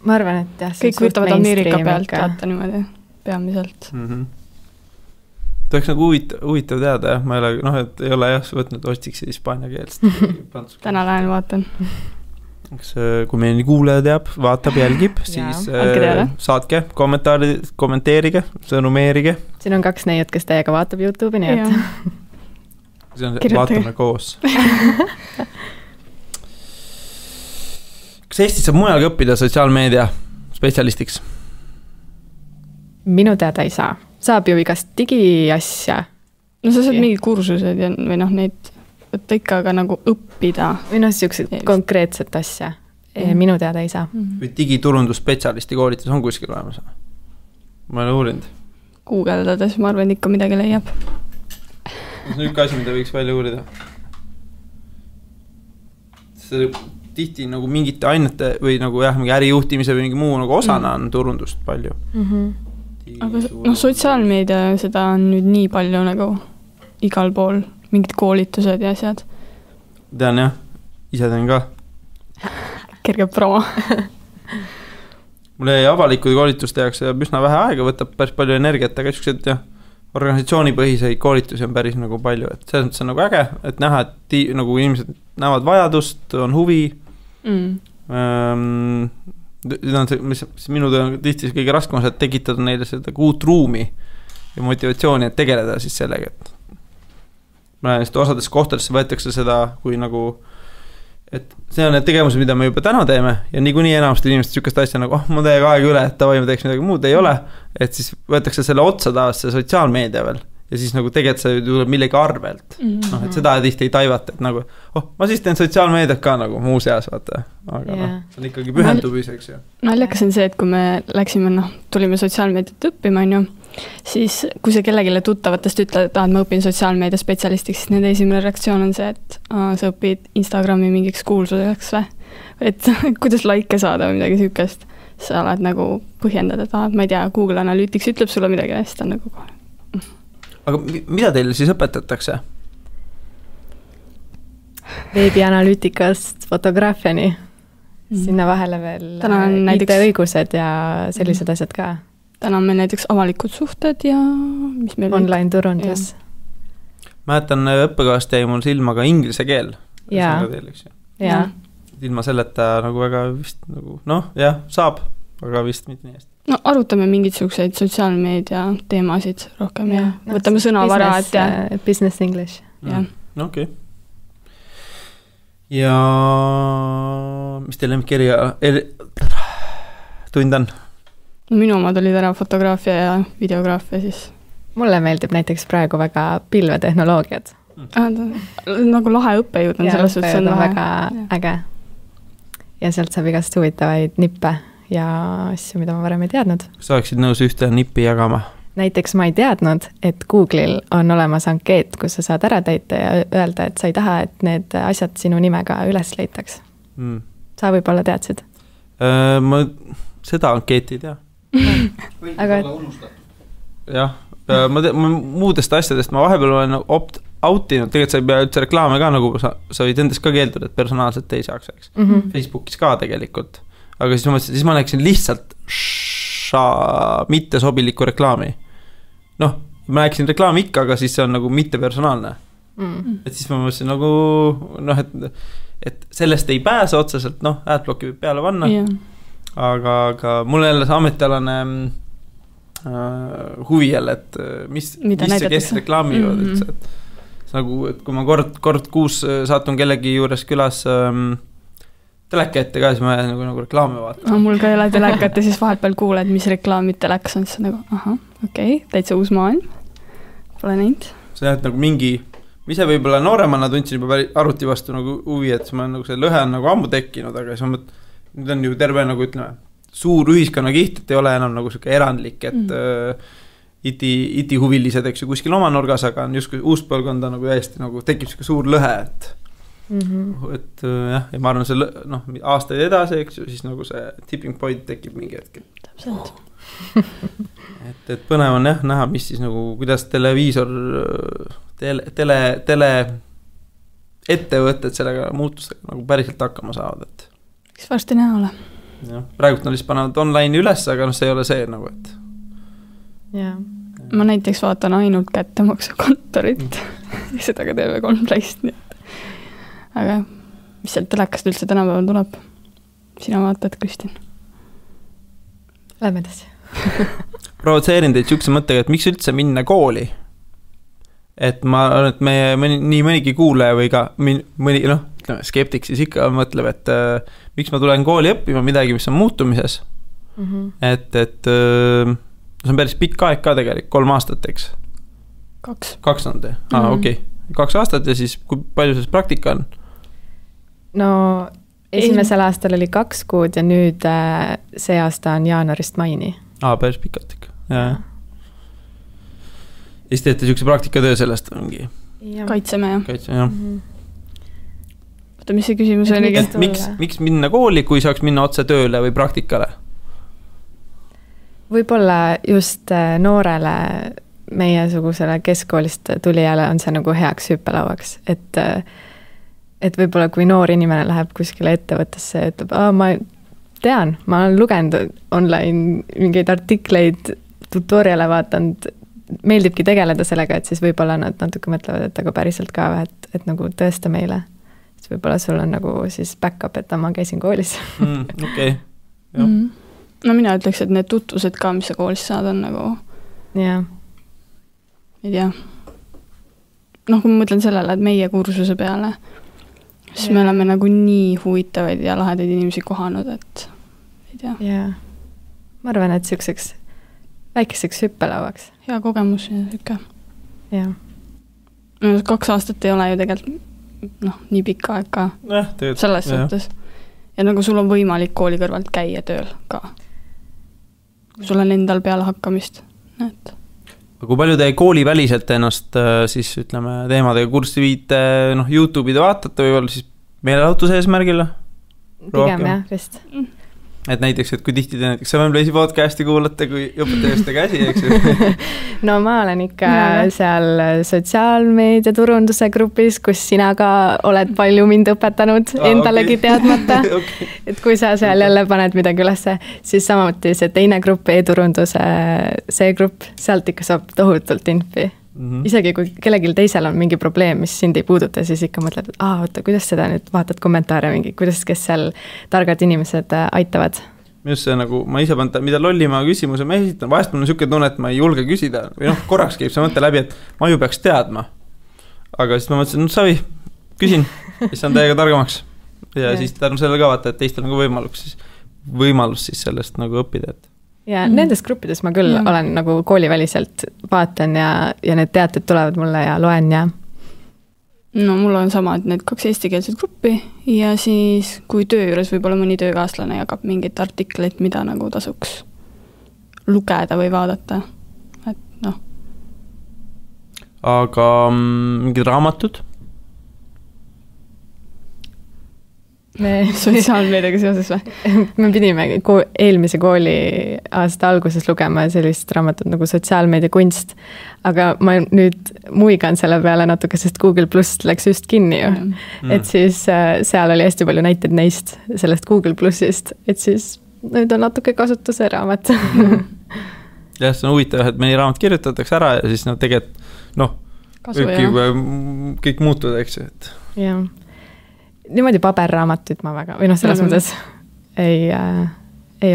Ma arvan, et jah. Kõik võtavad Ameerika pealt vaata niimoodi peamiselt. Ta oleks nagu huvitav teada, jah. Ma ei ole, et ei ole jah, võtnud ostiks hispaania keelst. Täna lähen vaatan. Kui meil nii kuulaja teab, vaatab, jälgib, siis saatke kommenteerige, sõnumeerige. Siin on 2 neiut, kes teiega vaatab YouTube'i, nii et see on, vaatame koos. Kas Eestis saab mujalgi õppida sotsiaalmeedia spetsialistiks? Minu teada ei saa. Saab ju igast digiasja. No sa saad mingid kursused ja, või noh, neid võtta ikka aga nagu õppida. Või noh, siuksed konkreetset asja. Minu teada ei saa. Või digiturundusspetsialisti koolitus on kuskil olemas? Ma olen uurinud. Googleldades, ma arvan, ikka midagi leiab. See on üks asi, mida võiks välja uurida. See tihti nagu mingite ainete või nagu jah, mingi ärijuhtimise või mingi muu nagu osana on turundust palju. Aga noh, sotsiaalmeedia seda on nüüd nii palju nagu igal pool, mingid koolitused ja asjad. Tean jah, ise teen ka. Kerge promo. Mulle avalikud koolitus tehakse üsna vähe aega, võtab päris palju energiat, aga siuksed jah, organisatsioonipõhiseid koolitusi on päris nagu palju, et selles mõttes on nagu äge, et näha, et nagu inimesed näevad vajadust, on huvi. Mis minu töö on tihti kõige raskem on, et tekitada neile seda uut ruumi ja motivatsiooni, et tegeleda siis sellega, et ma näen, et osades kohtadesse võetakse seda kui nagu, et see on need tegevused, mida me juba täna teeme ja niikuinii enamasti inimesed sükast asja nagu, ma teeg aega üle, et tavai, ma teeks midagi muud, ei ole, et siis võetakse selle otsa taas see sotsiaalmeedia veel ja siis nagu tegelikult see tuleb millegi arvelt. Noh, et seda tihti ei taivata, et nagu, ma siis teen sotsiaalmeediat ka nagu muu seas, vaata. Aga see on ikkagi pühendumiseks. Naljakas on see, et kui me läksime, tulime sotsiaalmeediat õppima, siis kui sa kellegile tuttavatest ütled, et ma õpin sotsiaalmeedia spetsialistiks, siis nende esimene reaktsioon on see, et sa õpid Instagrami mingiks kuulsuseks või? Et kuidas like saada või midagi sükest. Sa oled nagu põhjendad, et ma ei tea, Google Analytics ütleb sulle midagi ja siis ta nagu kohe. Aga mida teile siis õpetatakse? Veebianalüütikast fotograafiani. Sinna vahele veel IT-õigused ja sellised asjad ka. Täna on meil näiteks avalikud suhted ja mis meil online turundus. Mäletan, õppekavast jäi mul silma ka inglise keel. Ja. Ilma selleta nagu väga vist nagu, jah, saab, aga vist mitte nii hästi. No arutame mingisuguseid sotsiaalmeedia teemasid rohkem ja võtame sõnavara, et business English. Okei. Ja mis teil lemmikirja tund on? Minu omad olid ära fotograafia ja videograafia siis. Mulle meeldib näiteks praegu väga pilvetehnoloogiad. Nagu lahe õppejõud on selles suhtes. Ja õppejõud on väga äge. Ja sealt saab igast huvitavaid nippe ja asju, mida ma varem ei teadnud. Kas sa oleksid nõus ühte nippi jagama? Näiteks ma ei teadnud, et Google'il on olemas ankeet, kus sa saad ära täita ja öelda, et sa ei taha, et need asjad sinu nimega üles leitaks. Sa võib-olla teadsid? Ma seda ankeeti ei tea. Aga jah, ma muudest asjadest ma vahepeal olen opt-outinud, tegelikult sa ei pea üldse reklaame ka, nagu sa võid endast ka keelduda, et personaalselt ei saaks, eks. Facebookis ka tegelikult. Aga siis ma näeksin lihtsalt mitte sobiliku reklaami. Ma näeksin reklaami ikka, aga siis see on nagu mitte personaalne. Et siis ma mõtlesin nagu, et sellest ei pääse otseselt, adblocki võib peale panna. Aga mul jälle see ametialane huvi jälle, et mis see kes reklaamivad üldse. Nagu, et kui ma kord kuus saatun kellegi juures külas teleka ette ka, siis ma nagu reklaami vaatan. Mul ka ei ole telekat ja siis vahepeal kuuled, mis reklaamid telekas on, siis nagu, okei, täitsa uus maailm. Pole näinud. See on nagu mingi, ma ise võib-olla nooremana tundsin juba arvuti vastu nagu huvi, et ma nagu see lõhe on nagu ammu tekkinud, aga siis nüüd on ju terve nagu ütleme, suur ühiskonnakiht, et ei ole enam nagu selline erandlik, et IT-huvilised, eks ju, kuskil oma nurgas, aga on just uus põlvkonda nagu täiesti nagu tekib selline suur lõhe, et jah, ja ma arvan, see aastaid edasi, eks ju, siis nagu see tipping point tekib mingi hetkel. Täpselt. et põnev on jah, näha, mis siis nagu, kuidas televiisor, tele ettevõtted sellega muutustega nagu päriselt hakkama saavad, et eks varsti näha ole. Jah, praegult nad lihtsalt panevad online üles, aga see ei ole see nagu, et ma näiteks vaatan ainult kättemaksukontorit seda ka TV3 Playst, nii et aga mis sealt telekast üldse tänapäeval tuleb? Sina vaatad, Kristin? Lähme edasi. Provotseerin teid sihukese mõttega, et miks üldse minna kooli? et ma arvan, et nii mõnigi kuulaja või ka mõni, noh, ütleme, skeptik siis ikka mõtleb, et miks ma tulen kooli õppima midagi, mis on muutumises. Et see on päris pikk aeg ka tegelikult, 3 aastat, eks? 2 on te? Okei. 2 aastat ja siis kui palju see praktika on? No esimesel aastal oli 2 kuud ja nüüd see aasta on jaanuarist maini. Päris pikalt ikka, jah. Ja siis teete niisuguse praktikatöö sellest mingi? Kaitseme, jah. Kaitseme, jah. Oota, mis see küsimus oli? Miks minna kooli, kui saaks minna otse tööle või praktikale? Võib-olla just noorele meiesugusele keskkoolist tulijale on see nagu heaks hüppelauaks, et võib-olla kui noor inimene läheb kuskile ettevõttesse ja ütleb, ma tean, ma olen lugenud online mingeid artikleid, tutoriale vaatanud, meeldibki tegeleda sellega, et siis võib-olla nad natuke mõtlevad, et aga päriselt ka, et nagu tõesta meile. Siis võib-olla sul on nagu siis back-up, et ma käisin koolis. Okei. No mina ütleks, et need tutvused ka, mis sa koolis saad, on nagu... Jaa. Ei tea. Noh, kui ma mõtlen sellele, et meie kursuse peale, siis me oleme nagu nii huvitavaid ja lahedaid inimesi kohanud, et ei tea. Jaa. Ma arvan, et selliseks väikeseks hüppelauaks. Hea kogemus ja siuke. Jah. 2 aastat ei ole ju tegelikult nii pikka aeg ka selles suhtes. Ja nagu sul on võimalik kooli kõrvalt käia tööl ka. Kui sul on endal peale hakkamist. Kui palju te kooli väliselt ennast siis ütleme teemadega kurssi viite, YouTube'ide vaatate või siis meelelahutuse eesmärgile? Pigem jah, vist. Et näiteks, et kui tihti te näiteks Sevenplace'i podcasti kuulate, kui õpetajaste käsi, eks? No ma olen ikka seal sotsiaalmeedia turunduse grupis, kus sina ka oled palju mind õpetanud endalegi teadmata. Et kui sa seal jälle paned midagi ülesse, siis samuti see teine grupp, e-turunduse see grupp, sealt ikka saab tohutult infi. Isegi kui kellelgi teisel on mingi probleem, mis sind ei puuduta, siis ikka mõtled, et oota, kuidas seda nüüd vaatad kommentaare mingi, kuidas kes seal targad inimesed aitavad? Just see nagu, ma ise panen, mida lollima küsimuse ma esitan, vahest mul on niisugune tunne, et ma ei julge küsida või korraks käib see mõte läbi, et ma ju peaks teadma. Aga siis ma mõtlesin, savi, küsin, siis on täiega targamaks. Ja siis tänu sellele ka vaata, et teistel on võimalus siis sellest nagu õppida, et ja nendes gruppides ma küll olen nagu kooliväliselt vaatan ja need teated tulevad mulle ja loen ja... No mul on sama, et need 2 eestikeelset gruppi ja siis kui töö juures võib-olla mõni töökaaslane jagab mingit artikleid, mida nagu tasuks lugeda või vaadata. Et Aga mingid raamatud? Sotsiaalmeediaga seoses või? Me pidime eelmise kooli aasta alguses lugema sellist raamatut nagu sotsiaalmeedia kunst, aga ma nüüd muigan selle peale natuke, sest Google Plus läks just kinni ju. Et siis seal oli hästi palju näiteid neist, sellest Google Plusist, et siis nüüd on natuke kasutuse raamat. Jah, see on huvitav, et mõni raamat kirjutatakse ära ja siis tegelikult kõik muutuda, eks ju. Jah. Niimoodi paberraamatuid ma väga, või selles mõttes ei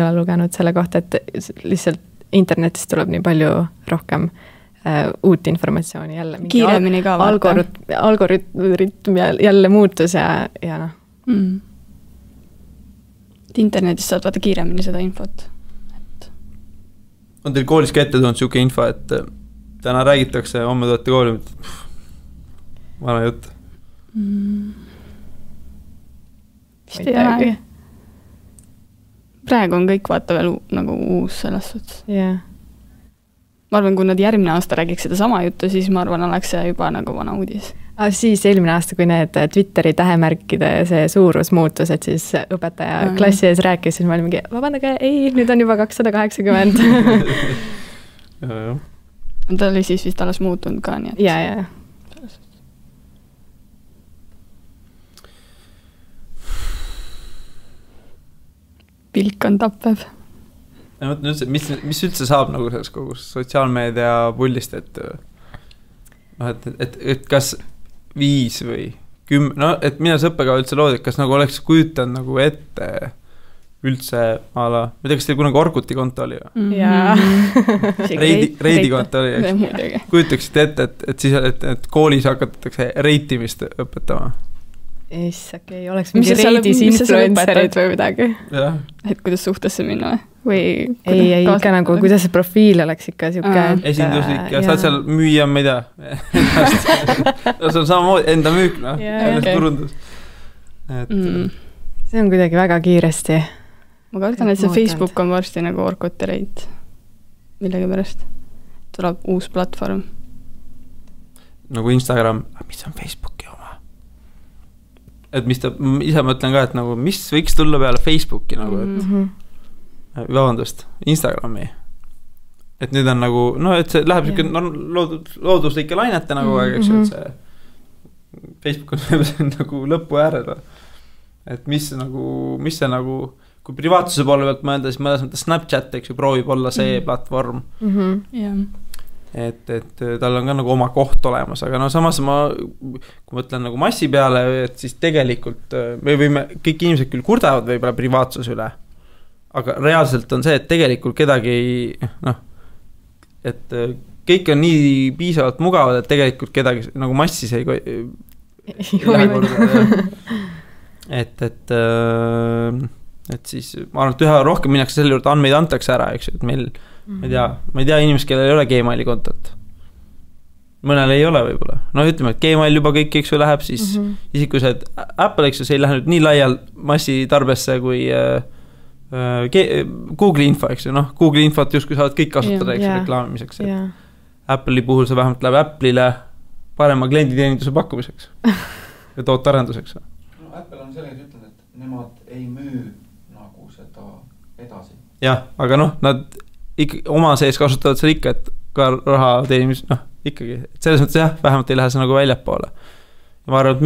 ole lugenud selle kohta, et lihtsalt internetist tuleb nii palju rohkem uut informatsiooni jälle. Kiiremini ka vaata. Algoritm jälle muutus ja Internetist saad vaata kiiremini seda infot. On teil koolis ka ette tulnud siuke info, et täna räägitakse, homme tulete kooli, vana jutt? Vist ei ole. Praegu on kõik vaata veel nagu uus selles suhtes. Yeah. Ma arvan, kui nad järgmine aasta räägiks seda sama juttu, siis ma arvan, oleks see juba nagu vana uudis. Siis eelmine aasta, kui need Twitteri tähemärkide see suurus muutus, et siis õpetaja klassi ees rääkis, siis ma olin mingi, vabandage, ei, nüüd on juba 280. Ta oli siis vist alles muutunud ka, nii et... Ja. Pilk on tappev. Mis üldse saab nagu selles kogu sotsiaalmeedia pullist, et kas 5 või 10, et mida see õppekava üldse loodi, et kas nagu oleks kujutanud nagu ette üldse ma ei tea, kas teil kunagi Orkuti konto oli või? Jaa. Reidi konto oli. Kujutaksite ette, et siis et koolis hakatakse reitimist õpetama. Okei, oleks mingi reidis influencerid või midagi. Et kuidas suhtesse minna või? Ei, ikka nagu, kuidas see profiil oleks ikka siuke. Esinduslik ja saad seal müüa, ma ei tea. See on samamoodi enda müük, turundus. See on kuidagi väga kiiresti. Ma kardan, et see Facebook on varsti nagu Orkuti reit. Millegi pärast. Tuleb uus platvorm. Nagu Instagram. Mis on Facebooki oma? Et mis ta, ise mõtlen ka, et nagu, mis võiks tulla peale Facebooki nagu, et vabandust, Instagrami. Et nüüd on nagu, et see läheb looduslike lainete nagu, eks ju, et see Facebook on nagu lõpu äärel. Et mis see nagu, kui privaatsuse poole pealt mõelda, siis mõnes mõttes Snapchat, eks ju, proovib olla see platvorm. Et tal on ka nagu oma koht olemas, aga samas kui mõtlen nagu massi peale, et siis tegelikult me võime, kõik inimesed küll kurdavad võib-olla privaatsuse üle, aga reaalselt on see, et tegelikult kedagi et kõik on nii piisavalt mugavad, et tegelikult kedagi nagu massis ei et siis ma arvan, et üha rohkem minnakse selle juurde, andmeid antakse ära, eks ju, et meil ma ei tea inimest, kellel ei ole Gmaili kontot. Mõnel ei ole võib-olla. Ütleme, et Gmail juba kõik, eks ju, läheb, siis isegi kui see Apple, eks ju, see ei lähe nüüd nii laial massitarbesse kui Google info, eks ju, Google infot justkui saavad kõik kasutada, eks ju, reklaamimiseks. Apple'i puhul see vähemalt läheb Apple'ile parema klienditeeninduse pakkumiseks ja tootarenduseks. Apple on sellega ütlenud, et nemad ei müü nagu seda edasi. Jah, aga nad oma sees kasutavad seal ikka, et ka raha teenimis, ikkagi, et selles mõttes jah, vähemalt ei lähe see nagu väljapoole. Ja ma arvan, et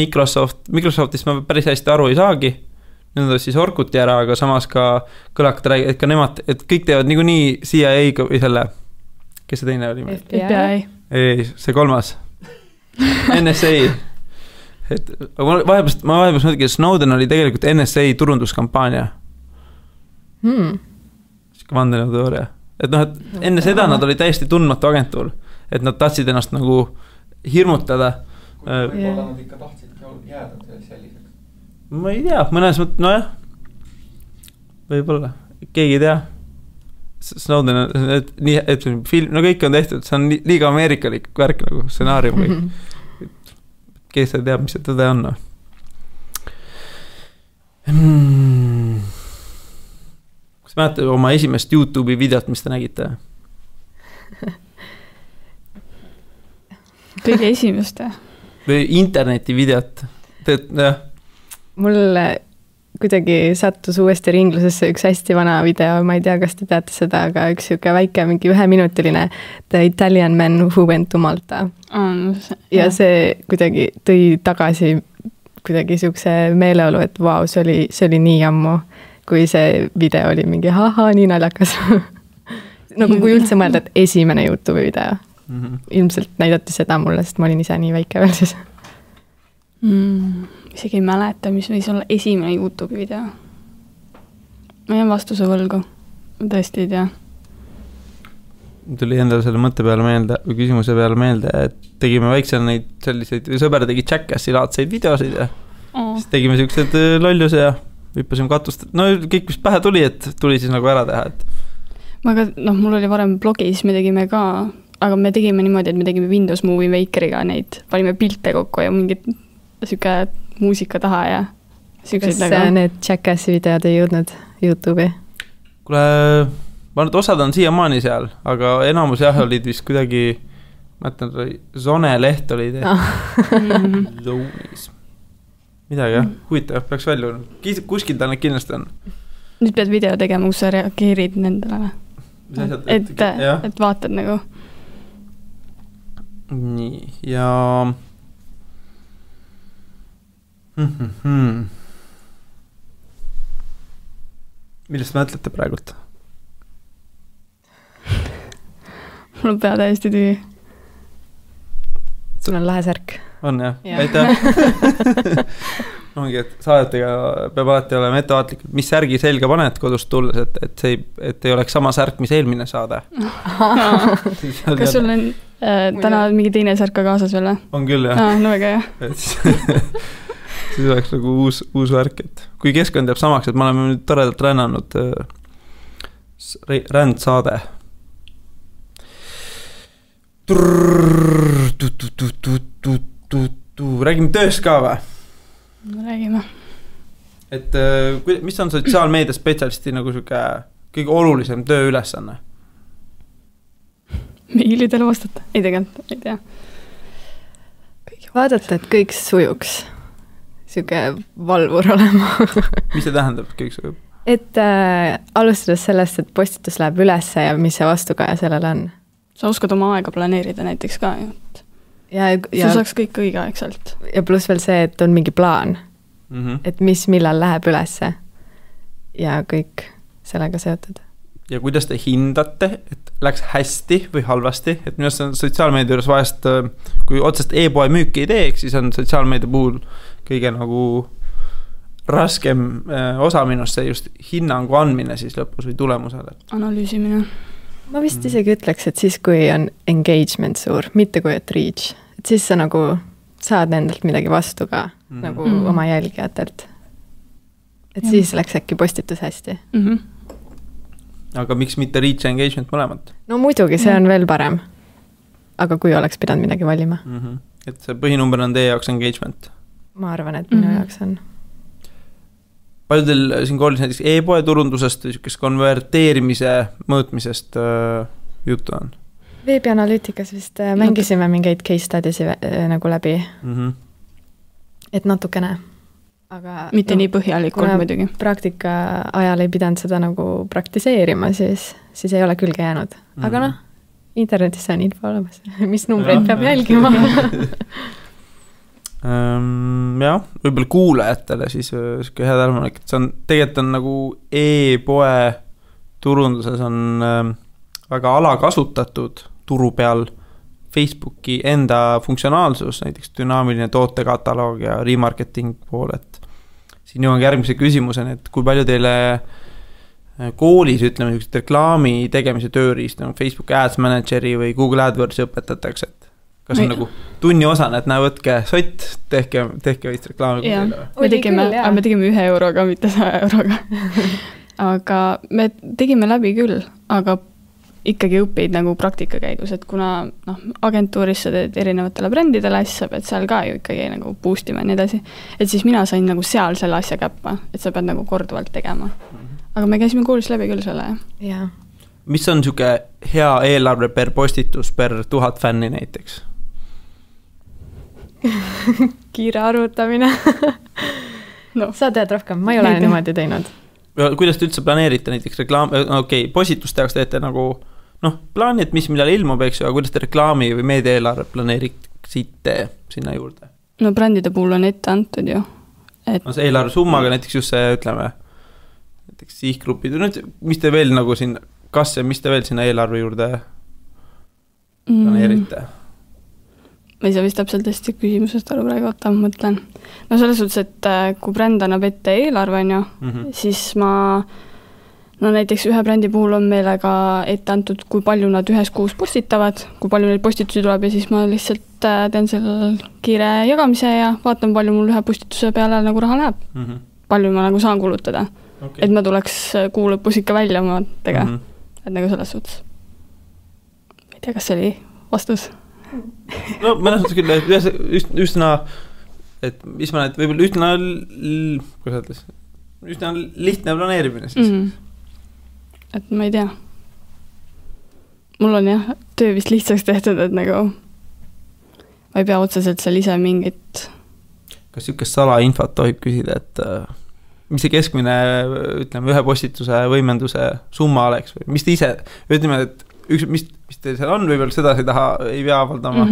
Microsoftist ma päris hästi aru ei saagi, nüüd on siis Orkuti ära, aga samas ka kõlakad räägid, et ka nemad, et kõik teevad nii CIA või selle, kes see teine oli? FBI. Ei, see kolmas. NSA. Et ma vahepeal mõtlengi, et Snowden oli tegelikult NSA turunduskampaania. Vandenõuteooria. Et enne seda nad oli täiesti tundmatu agentuur, et nad tahtsid ennast nagu hirmutada. Võib-olla nad ikka tahtsid jääda selliseks. Ma ei tea, mõnes mõttes, võib-olla, keegi ei tea. Snowden on, et film, kõik on tehtud, see on liiga ameerikalik värk nagu stsenaarium või kes see teab, mis see tõde on. Kas mäletate oma esimest YouTube'i videot, mis te nägite? Kõige esimest. Või interneti videot? Mul kuidagi sattus uuesti ringlusesse üks hästi vana video, ma ei tea, kas te teate seda, aga üks siuke väike, mingi 1-minutiline The Italian Man Who Went to Malta. Ja see kuidagi tõi tagasi kuidagi siukse meeleolu, et vau, see oli nii ammu, kui see video oli mingi nii naljakas. Nagu kui üldse mõelda, et esimene YouTube'i video. Ilmselt näidati seda mulle, sest ma olin ise nii väike veel siis. Isegi ei mäleta, mis võis olla esimene YouTube'i video. Ma jään vastuse võlgu. Ma tõesti ei tea. Tuli endale selle mõtte peale meelde, või küsimuse peale meelde, et tegime väiksel neid selliseid, sõber tegi Jackassi laadseid videosid ja siis tegime siuksed lolluse ja hüppasime katust. Kõik, mis pähe tuli, et tuli siis nagu ära teha. Mul oli varem blogi, siis me tegime ka, aga me tegime niimoodi, et me tegime Windows Movie Makeriga neid, panime pilte kokku ja mingid siuke muusika taha ja siukseid nagu. Kas need Jackassi videod ei jõudnud YouTube'i? Kuule, ma nüüd osad on siiamaani seal, aga enamus jah olid vist kuidagi, mõtlen, Zone leht oli Zonis. Midagi jah, huvitav, peaks välja. Kuskil ta need kindlasti on. Nüüd pead video tegema, kus sa reageerid nendele. Et vaatad nagu. Nii, ja millest mõtlete praegult? Mul on pea täiesti tühi. Sul on lahe särk. On jah, aitäh. ongi, et saadetega peab alati olema ettevaatlik, et mis särgi selga paned kodust tulles, et ei oleks sama särk, mis eelmine saade. Kas sul on täna mingi teine särk ka kaasas veel? On küll, jah. No väga hea. Siis oleks nagu uus värk, et kui keskkond jääb samaks, et me oleme nüüd toredalt rännanud rändsaade. Räägime tööst ka või? No räägime. Et mis on sotsiaalmeedia spetsialisti nagu kõige olulisem tööülesanne? Meilidele vastata? Ei tegelikult, ei tea. Vaadata, et kõik sujuks. Siuke valvur olema. Mis see tähendab, et kõik sujub? Et alustades sellest, et postitus läheb ülesse ja mis see vastukaja sellel on. Sa oskad oma aega planeerida näiteks ka, sa saaks kõik õigeaegselt. Ja pluss veel see, et on mingi plaan, et mis millal läheb ülesse ja kõik sellega seotud. Ja kuidas te hindate, et läks hästi või halvasti, et minu arust on sotsiaalmeedia juures vahest, kui otsest e-poe müüki ei teeks, siis on sotsiaalmeedia puhul kõige nagu raskem osa minust see just hinnangu andmine siis lõpus või tulemusele. Analüüsimine. Ma vist isegi ütleks, et siis kui on engagement suur, mitte kui et reach, et siis sa nagu saad endalt midagi vastu ka nagu oma jälgijatelt. Et siis läks äkki postitus hästi. Aga miks mitte reach ja engagement mõlemad? No muidugi, see on veel parem. Aga kui oleks pidanud midagi valima. Et see põhinumber on teie jaoks engagement? Ma arvan, et minu jaoks on. Palju teil siin koolis näiteks e-poe turundusest või konverteerimise mõõtmisest juttu on? Veebianalüütikas vist mängisime mingeid case studiesi nagu läbi. Et natukene. Aga mitte nii põhjalikult muidugi. Praktika ajal ei pidanud seda nagu praktiseerima, siis ei ole külge jäänud. Aga internetis on info olemas. Mis numbreid peab jälgima? Jah, võib-olla kuulajatele siis hea tähelepanek, et see on tegelikult on nagu e-poe turunduses on väga alakasutatud turu peal Facebooki enda funktsionaalsus, näiteks dünaamiline tootekataloog ja remarketing pool, et siin jõuan järgmise küsimuseni, et kui palju teile koolis, ütleme, reklaami tegemise tööriist nagu Facebook Ads Manageri või Google AdWordsi õpetatakse, et kas on nagu tunni osana, et võtke sott, tehke võist reklaami. Me tegime 1 euroga, mitte 100 euroga. Aga me tegime läbi küll, aga ikkagi õppeid nagu praktika käigus, et kuna agentuuris sa teed erinevatele brändidele asja, pead seal ka ju ikkagi nagu boostima ja nii edasi. Et siis mina sain nagu seal selle asja käppa, et sa pead nagu korduvalt tegema. Aga me käisime koolis läbi küll selle. Jaa. Mis on siuke hea eelarve per postitus per 1000 fänni näiteks? Kiire arvutamine. Sa tead rohkem, ma ei ole niimoodi teinud. Kuidas te üldse planeerite näiteks reklaam, postituste jaoks teete nagu plaani, et mis millal ilmub, eks ju, aga kuidas te reklaami või meediaeelarve planeeriksite sinna juurde? No brändide puhul on ette antud ju. See eelarve summaga näiteks just see, ütleme, näiteks sihtgrupid, mis te veel nagu siin, kas ja mis te veel sinna eelarve juurde planeerite? Ma ei saa vist täpselt hästi küsimusest aru praegu, ma mõtlen. No selles suhtes, et kui bränd annab ette eelarve, siis näiteks ühe brändi puhul on meile ka ette antud, kui palju nad ühes kuus postitavad, kui palju neid postitusi tuleb ja siis ma lihtsalt teen selle kiire jagamise ja vaatan, palju mul ühe postituse peale nagu raha läheb. Palju ma nagu saan kulutada. Okay. Et ma tuleks kuu lõpus ikka välja oma tega. Et nagu selles suhtes. Ma ei tea, kas see oli vastus? No mõnes mõttes küll, üsna, et mis ma näed, võib-olla üsna lihtne planeerimine siis. Et ma ei tea. Mul on jah, töö vist lihtsaks tehtud, et nagu ma ei pea otseselt seal ise mingit. Kas niisugust salainfot tohib küsida, et mis see keskmine, ütleme, ühe postituse võimenduse summa oleks või mis te ise, ütleme, et mis teil seal on, võib-olla seda ei pea avaldama,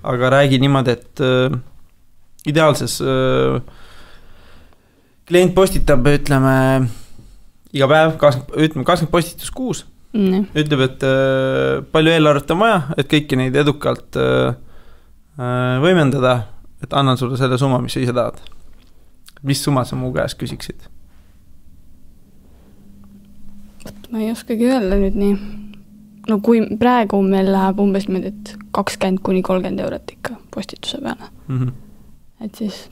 aga räägi niimoodi, et ideaalses klient postitab, ütleme, iga päev 20 postitus kuus, ütleb, et palju eelarvet on vaja, et kõiki neid edukalt võimendada, et annan sulle selle summa, mis sa ise tahad. mis summa sa mu käest küsiksid? Ma ei oskagi öelda nüüd nii. No kui praegu meil läheb umbes 20–30 eurot ikka postituse peale. Et siis,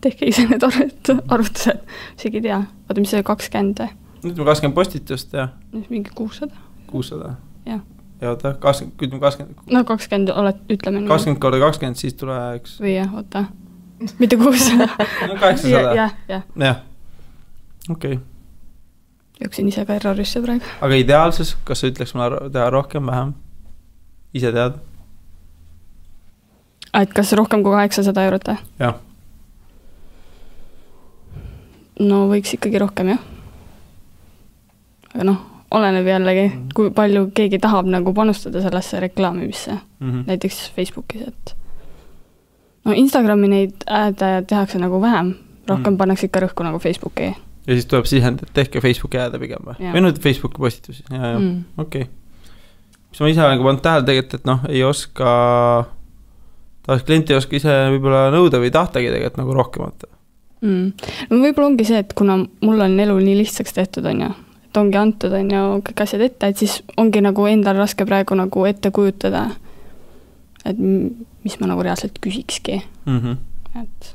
tehke ise need arvutused, isegi tea. Vaata, mis see 20 või? Nüüd 20 postitust ja? Mingi 600. 600? Jah. Ja oota, 20. No 20 oled, ütleme. 20 korda 20, siis tuleks... Või jah, oota. Mitte 600. No 800. Jah. Okei. Jooksin ise ka errorisse praegu. Aga ideaalses, kas sa ütleks mulle teha rohkem, vähem? Ise tead? Et kas rohkem kui 800 eurot? Jah. No võiks ikkagi rohkem, jah. Aga oleneb jällegi, kui palju keegi tahab nagu panustada sellesse reklaamimisse. Näiteks Facebookis, et Instagrami neid tehakse nagu vähem. Rohkem pannakse ikka rõhku nagu Facebooki. Ja siis tuleb sisend, et tehke Facebooki jääda pigem või? Või nüüd Facebooki postitusi? Okei. Mis ma ise olen pannud tähele tegelikult, et ei oska, taas klient ei oska ise võib-olla nõuda või tahtagi tegelikult nagu rohkemat. No võib-olla ongi see, et kuna mul on elu nii lihtsaks tehtud, et ongi antud kõik asjad ette, et siis ongi nagu endal raske praegu nagu ette kujutada, et mis ma nagu reaalselt küsikski. Et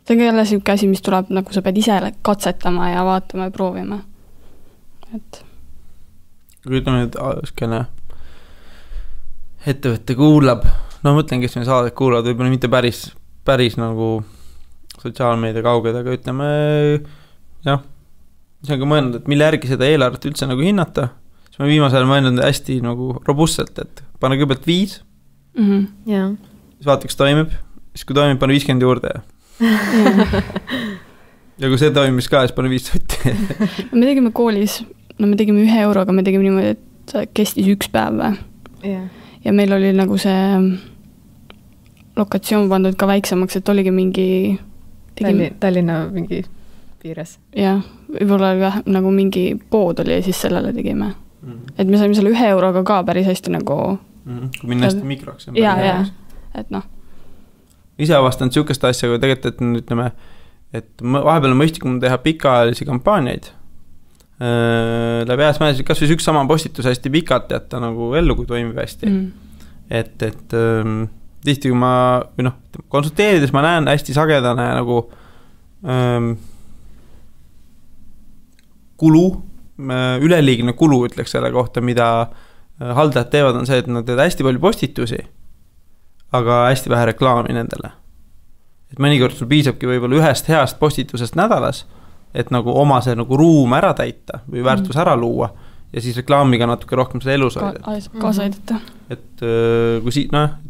see on ka jälle selline asi, mis tuleb, nagu sa pead ise katsetama ja vaatama ja proovima. Et kui ütleme nüüd skene ettevõtte kuulab, mõtlen, kes me saadet kuulavad, võib-olla mitte päris nagu sotsiaalmeedia kauged, aga ütleme, jah, see on ka mõelnud, et mille järgi seda eelarvet üldse nagu hinnata, siis ma viimasel mõelnud hästi nagu robustselt, et pane kõigepealt 5, siis vaata, kas toimib, siis kui toimib, pane 50 juurde ja kui see toimis ka, siis pane 5 sotti. Me tegime koolis, me tegime 1 euroga, me tegime niimoodi, et kestis 1 päev ja meil oli nagu see lokatsioon pandud ka väiksemaks, et oligi mingi Tallinna mingi piires. Jah, võib-olla nagu mingi pood oli ja siis sellele tegime. Et me saime selle 1 euroga ka päris hästi nagu kui minna hästi mikroks. Ja, et ise avastanud siukest asja, kui tegelikult, et ütleme, et vahepeal on mõistlikum teha pikaajalisi kampaaniaid. Läbi ääsmäes, kas või üks sama postitus hästi pikalt jätta nagu ellu, kui toimib hästi. Et tihti, kui ma konsulteerides ma näen hästi sagedane nagu kulu, üleliigne kulu ütleks selle kohta, mida haldajad teevad, on see, et nad teevad hästi palju postitusi, aga hästi vähe reklaami nendele. Et mõnikord sul piisabki võib-olla 1 heast postitusest nädalas, et nagu oma see nagu ruum ära täita või väärtus ära luua ja siis reklaamiga natuke rohkem seda elus hoida. Kaasa aidata. Et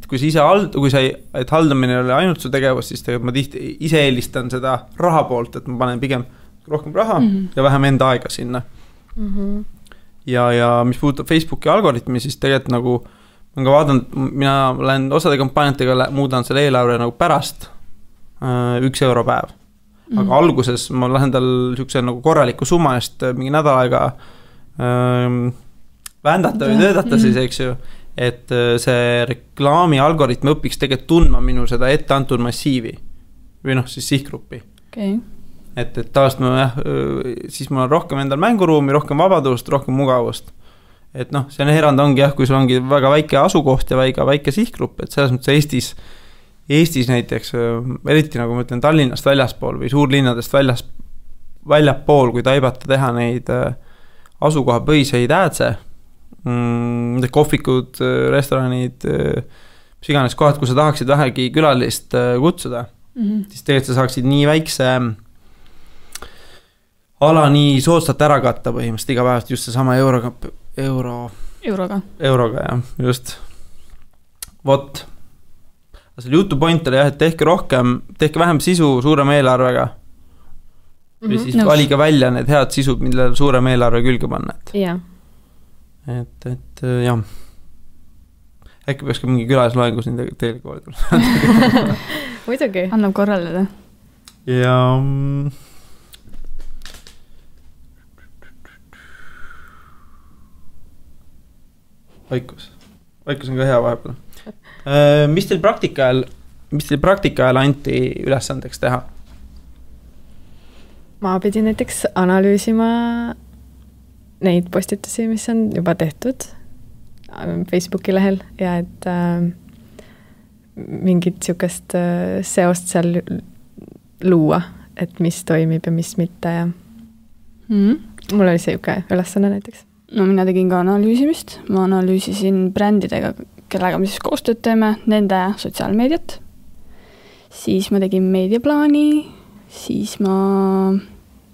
kui et haldamine oli ainult su tegevus, siis tegelikult ma tihti ise eelistan seda raha poolt, et ma panen pigem rohkem raha ja vähem enda aega sinna. Ja mis puudutab Facebooki algoritmi, siis tegelikult nagu ma ka vaatan, mina olen osade kampaaniatega muudan selle eelarve nagu pärast 1 euro päev. Aga alguses ma lähen tal siukse nagu korraliku summa eest mingi nädal aega vändata või töödata siis, eks ju, et see reklaami algoritm õpiks tegelikult tundma minu seda ette antud massiivi või siis sihtgruppi. Et taast siis mul on rohkem endal mänguruumi, rohkem vabadust, rohkem mugavust. Et see on erand ongi kui sul ongi väga väike asukoht ja väike sihtgrupp, et selles mõttes Eestis näiteks, eriti nagu ma ütlen Tallinnast väljaspool või suurlinnadest väljapool, kui taibata teha neid asukoha põhiseid äädse, kohvikud, restoranid, mis iganes kohad, kui sa tahaksid vähegi külalist kutsuda, siis tegelikult sa saaksid nii väikse ala nii soodsalt ära katta põhimõtteliselt iga päevast just see sama euroga, jah, just. Vot. Selle jutu point oli et tehke vähem sisu suurema eelarvega. Või siis valige välja need head sisud, millele suurem eelarve külge panna. Et jah. Äkki peaks ka mingi külasloengus teile koolida. Muidugi. Annab korraldada. Ja Vaikus on ka hea vahepeal. Mis teil praktika ajal anti ülesandeks teha? ma pidin näiteks analüüsima neid postitusi, mis on juba tehtud Facebooki lehel ja et mingit niisugust seost seal luua, et mis toimib ja mis mitte ja mul oli see niisugune ülesanne näiteks. No mina tegin ka analüüsimist, ma analüüsisin brändidega, kellega me siis koostööd teeme, nende sotsiaalmeediat, siis ma tegin meediaplaani, siis ma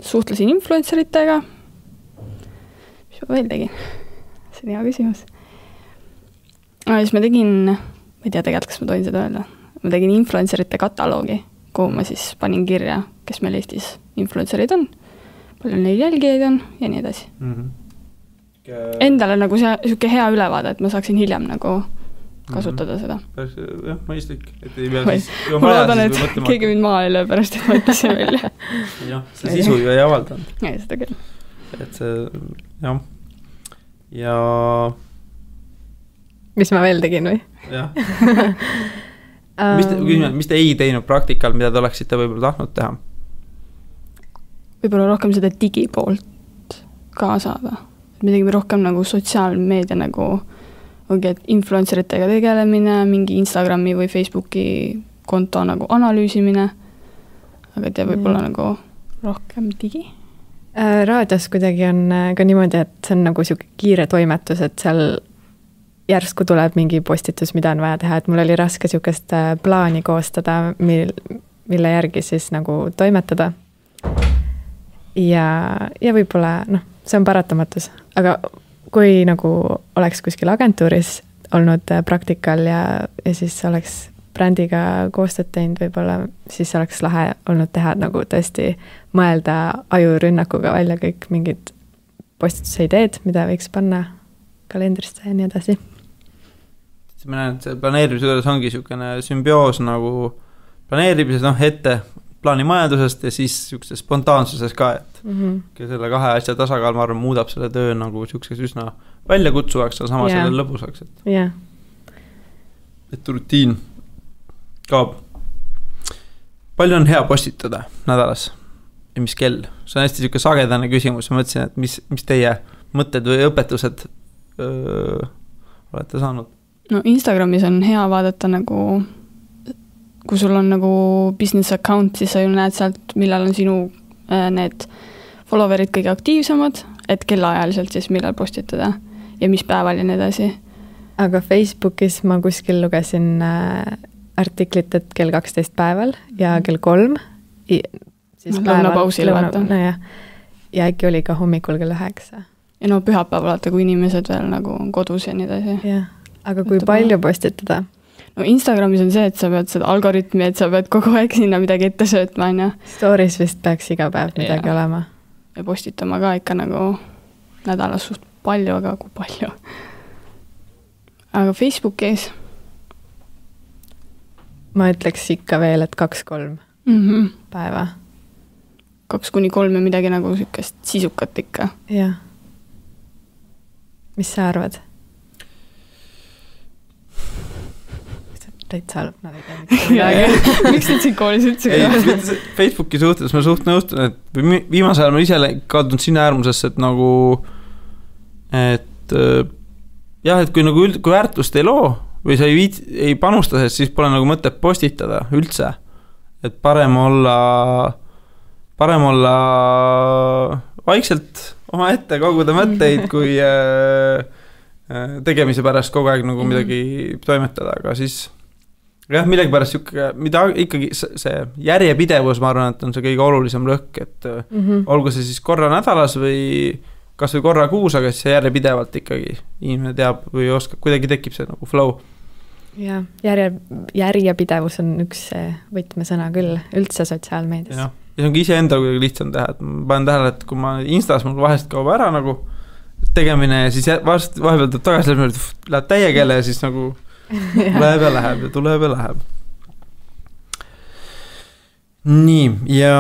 suhtlesin influenceritega, mis ma veel tegin? See on hea küsimus. Siis ma tegin, ma ei tea tegelikult, kas ma tohin seda öelda, ma tegin influencerite kataloogi, kuhu ma siis panin kirja, kes meil Eestis influencerid on, palju neil jälgijaid on ja nii edasi. Endale nagu see hea ülevaade, et ma saaksin hiljem nagu kasutada seda. Jah, mõistlik. Ma loodan, et keegi mind maa ei löö pärast, et ma ütlesin välja. Jah, see sisu ju ei avaldanud. Ja, seda küll. Et see, jah. Ja... Mis ma veel tegin või? Jah. Mis te ei teinud praktikal, mida te oleksite võib-olla tahtnud teha? Võib-olla rohkem seda digipoolt kaasada. Me tegime rohkem nagu sotsiaalmeedia nagu et influenceritega tegelemine, mingi Instagrami või Facebooki konto nagu analüüsimine, aga te võib-olla nagu rohkem digi? Raadios kuidagi on ka niimoodi, et see on nagu siuke kiire toimetus, et seal järsku tuleb mingi postitus, mida on vaja teha, et mul oli raske siukest plaani koostada, mille järgi siis nagu toimetada. Ja võib-olla, see on paratamatus, aga kui nagu oleks kuskil agentuuris olnud praktikal ja siis oleks brändiga koostööd teinud, võib-olla siis oleks lahe olnud teha nagu tõesti mõelda ajurünnakuga välja kõik mingid postituse ideed, mida võiks panna kalendrisse ja nii edasi. Ma näen, et see planeerimise juures ongi niisugune sümbioos nagu planeerimises, ette plaanimajandusest ja siis niisuguse spontaansuses ka, et selle kahe asja tasakaal, ma arvan, muudab selle töö nagu niisuguseks üsna väljakutsuvaks, aga sama selle lõbusaks. Et rutiin kaob. Palju on hea postitada nädalas ja mis kell? See on hästi niisugune sagedane küsimus, ma mõtlesin, et mis teie mõtted või õpetused olete saanud? No Instagramis on hea vaadata nagu, kui sul on nagu business account, siis sa ju näed sealt, millal on sinu need followerid kõige aktiivsemad, et kellaajaliselt siis millal postitada ja mis päeval ja nii edasi. Aga Facebookis ma kuskil lugesin artiklit, et kell 12 päeval ja kell 3. Siis lõunapausile vaata. Ja äkki oli ka hommikul kell 9. Ja pühapäeval vaata, kui inimesed veel nagu on kodus ja nii edasi. Jah. Aga kui palju postitada? No Instagramis on see, et sa pead seda algoritmi, et sa pead kogu aeg sinna midagi ette söötma, on. Stories vist peaks iga päev midagi olema. Ja postitama ka ikka nagu nädalas suht palju, aga kui palju. Aga Facebookis? Ma ütleks ikka veel, et 2-3 päeva. 2-3 ja midagi nagu sükest sisukat ikka. Jah. Mis sa arvad? Täitsa halb, nad ei tea midagi. Miks nüüd siin koolis üldse? Facebooki suhtes ma suht nõustun, et viimasel ajal ma ise kaldunud sinna äärmusesse, et nagu et kui nagu kui väärtust ei loo või sa ei panusta, siis pole nagu mõtet postitada üldse. Et parem olla vaikselt oma ette koguda mõtteid, kui tegemise pärast kogu aeg nagu midagi toimetada, aga siis millegi pärast mida ikkagi see järjepidevus, ma arvan, et on see kõige olulisem lõhk, et olgu see siis korra nädalas või kas või korra kuus, aga siis see järjepidevalt ikkagi inimene teab või oskab, kuidagi tekib see nagu flow. Ja järjepidevus on üks võtmesõna küll üldse sotsiaalmeedias. Ja see ongi ise enda kuidagi lihtsam teha, et ma panen tähele, et kui ma Instas mul vahest kaob ära nagu tegemine ja siis vahepeal tuleb tagasi läheb täie keele ja siis nagu tuleb ja läheb. Nii, ja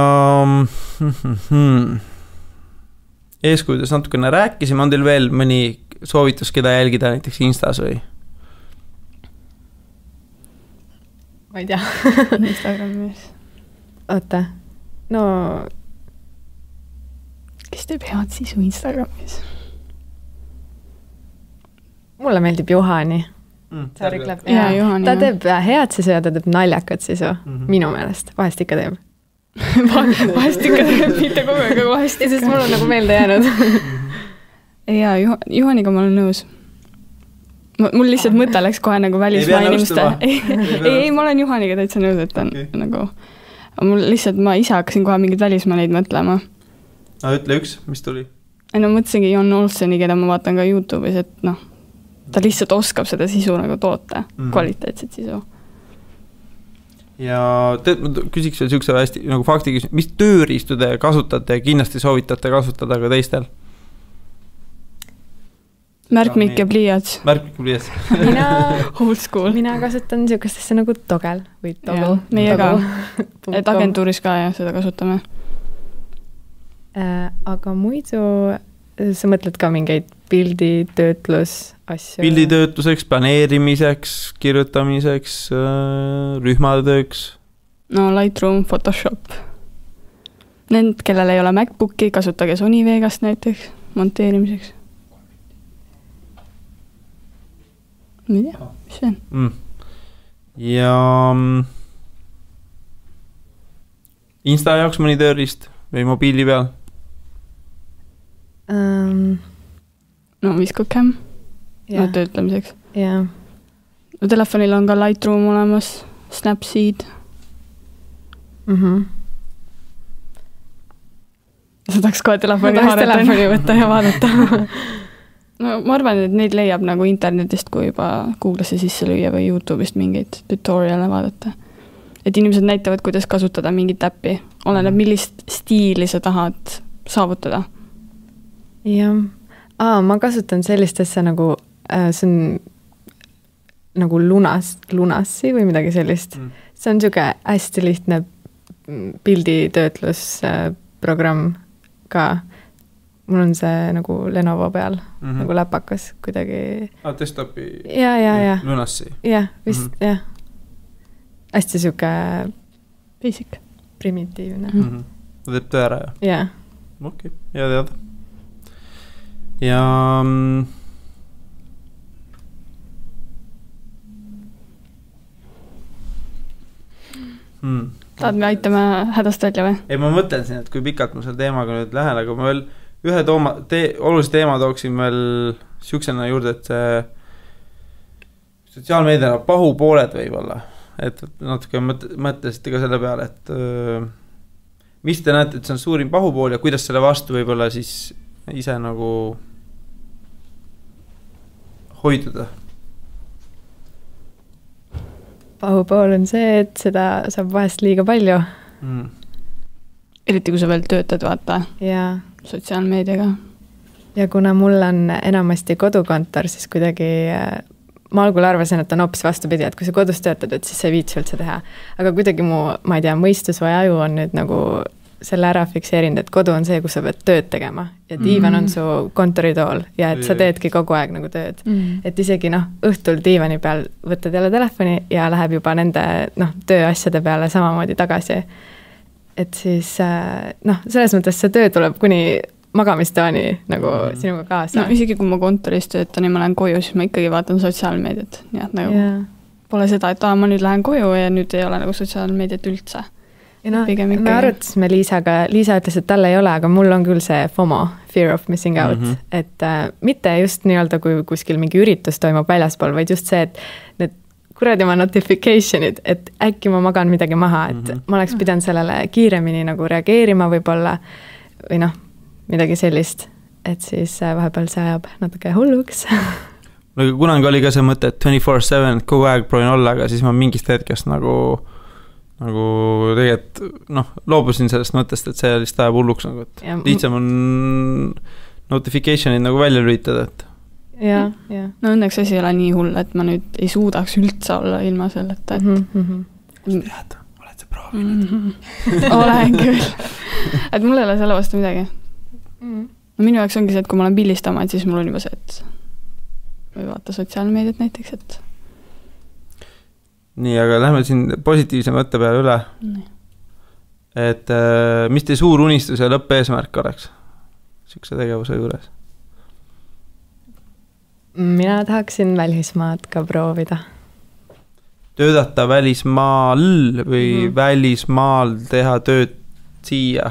eeskujudest natukene rääkisime, on teil veel mõni soovitus, keda jälgida näiteks Instas või? Ma ei tea. Instagramis. Oota, no teeb head sisu Instagramis? Mulle meeldib Juhani. Ta teeb head sisu ja ta teeb naljakat sisu, minu meelest, vahest ikka teeb. Vahest ikka teeb, mitte kogu aeg, aga vahest ikka. Sest mul on nagu meelde jäänud. Jaa, Juhaniga ma olen nõus. Mul lihtsalt mõte läks kohe nagu välismaa inimeste. Ei, ma olen Juhaniga täitsa nõus, et on nagu... Mul lihtsalt, ma ise hakkasin kohe mingid välismaaleid mõtlema. Ütle üks, mis tuli? No mõtlesingi Jon Olseni, keda ma vaatan ka YouTube'is, et noh, ta lihtsalt oskab seda sisu nagu toota, kvaliteetset sisu. Ja küsiks veel siukse hästi nagu fakti küsimus, mis tööriistu te kasutate ja kindlasti soovitate kasutada ka teistel? Märkmik ja pliiats. Märkmik ja pliiats. Old school. Mina kasutan siukestesse nagu togel või togel. Meie ka. Et agentuuris ka ja seda kasutame. Aga muidu sa mõtled ka mingeid pilditöötlus asju? Pilditöötluseks, planeerimiseks, kirjutamiseks, rühmatööks? No Lightroom, Photoshop. Need, kellel ei ole MacBooki, kasutage Sony Vegast näiteks monteerimiseks. Ma ei tea, mis see on? Ja Insta jaoks mõni tööriist või mobiili peal? No Viscocam töötlemiseks. Yeah. No telefonil on ka Lightroom olemas, Snapseed. Sa tahaks kohe telefoni võtta ja vaadata. No ma arvan, et neid leiab nagu internetist, kui juba Google'isse sisse lüüa või YouTube'ist mingeid tutoriale vaadata. Et inimesed näitavad, kuidas kasutada mingit äppi. Oleneb, millist stiili sa tahad saavutada. Jah. Ma kasutan sellist asja nagu, see on nagu lunassi või midagi sellist. See on siuke hästi lihtne pilditöötlusprogramm ka. Mul on see nagu Lenovo peal, nagu läpakas kuidagi. Desktopi ja. Lunassi. Jah, vist, jah. Hästi siuke basic. Primitiivne. Ta teeb töö ära, jah? Jah. Okei, hea teada. Ja tahad me aitame hädast välja või? Ei, ma mõtlen siin, et kui pikalt ma selle teemaga nüüd lähen, aga ma veel ühe olulise teema tooksin veel siuksena juurde, et sotsiaalmeediana pahupooled võib-olla, et natuke mõtlesite ka selle peale, et mis te näete, et see on suurim pahupool ja kuidas selle vastu võib-olla siis ise nagu hoiduda? Pahupool on see, et seda saab vahest liiga palju. Eriti kui sa veel töötad, vaata. Jaa. Sotsiaalmeediaga. Ja kuna mul on enamasti kodukontor, siis kuidagi ma algul arvasin, et on hoopis vastupidi, et kui sa kodus töötad, et siis sa ei viitsi üldse teha. Aga kuidagi ma ei tea, mõistus või aju on nüüd nagu selle ära fikseerinud, et kodu on see, kus sa pead tööd tegema ja diivan on su kontoritool ja et sa teedki kogu aeg nagu tööd. Et isegi õhtul diivani peal võtad jälle telefoni ja läheb juba nende tööasjade peale samamoodi tagasi. Et siis selles mõttes see töö tuleb kuni magamistoani nagu sinuga kaasa. No isegi kui ma kontoris töötan ja ma lähen koju, siis ma ikkagi vaatan sotsiaalmeediat. Nii et nagu pole seda, et ma nüüd lähen koju ja nüüd ei ole nagu sotsiaalmeediat üldse. Ja me arutasime Liisaga, Liisa ütles, et tal ei ole, aga mul on küll see FOMO, fear of missing out, et mitte just nii-öelda, kui kuskil mingi üritus toimub väljaspool, vaid just see, et need kuradi oma notificationid, et äkki ma magan midagi maha, et ma oleks pidanud sellele kiiremini nagu reageerima võib-olla või midagi sellist, et siis vahepeal see ajab natuke hulluks. Kunagi oli ka see mõte, et 24/7 kogu aeg proovin olla, aga siis ma mingist hetkest nagu tegelikult loobusin sellest mõttest, et see lihtsalt ajab hulluks nagu, et lihtsam on notificationid nagu välja lülitada, et ja. No õnneks asi ei ole nii hull, et ma nüüd ei suudaks üldse olla ilma selleta, et kust tead, oled sa proovinud? Olen küll. Et mul ei ole selle vastu midagi. No minu jaoks ongi see, et kui ma olen pildistama, et siis mul on juba see, et või vaata sotsiaalmeediat näiteks, et nii, aga lähme siin positiivse mõtte peale üle. Et mis teie suur unistus ja lõppeesmärk oleks siukse tegevuse juures? Mina tahaksin välismaad ka proovida. Töötada välismaal või välismaal teha tööd siia?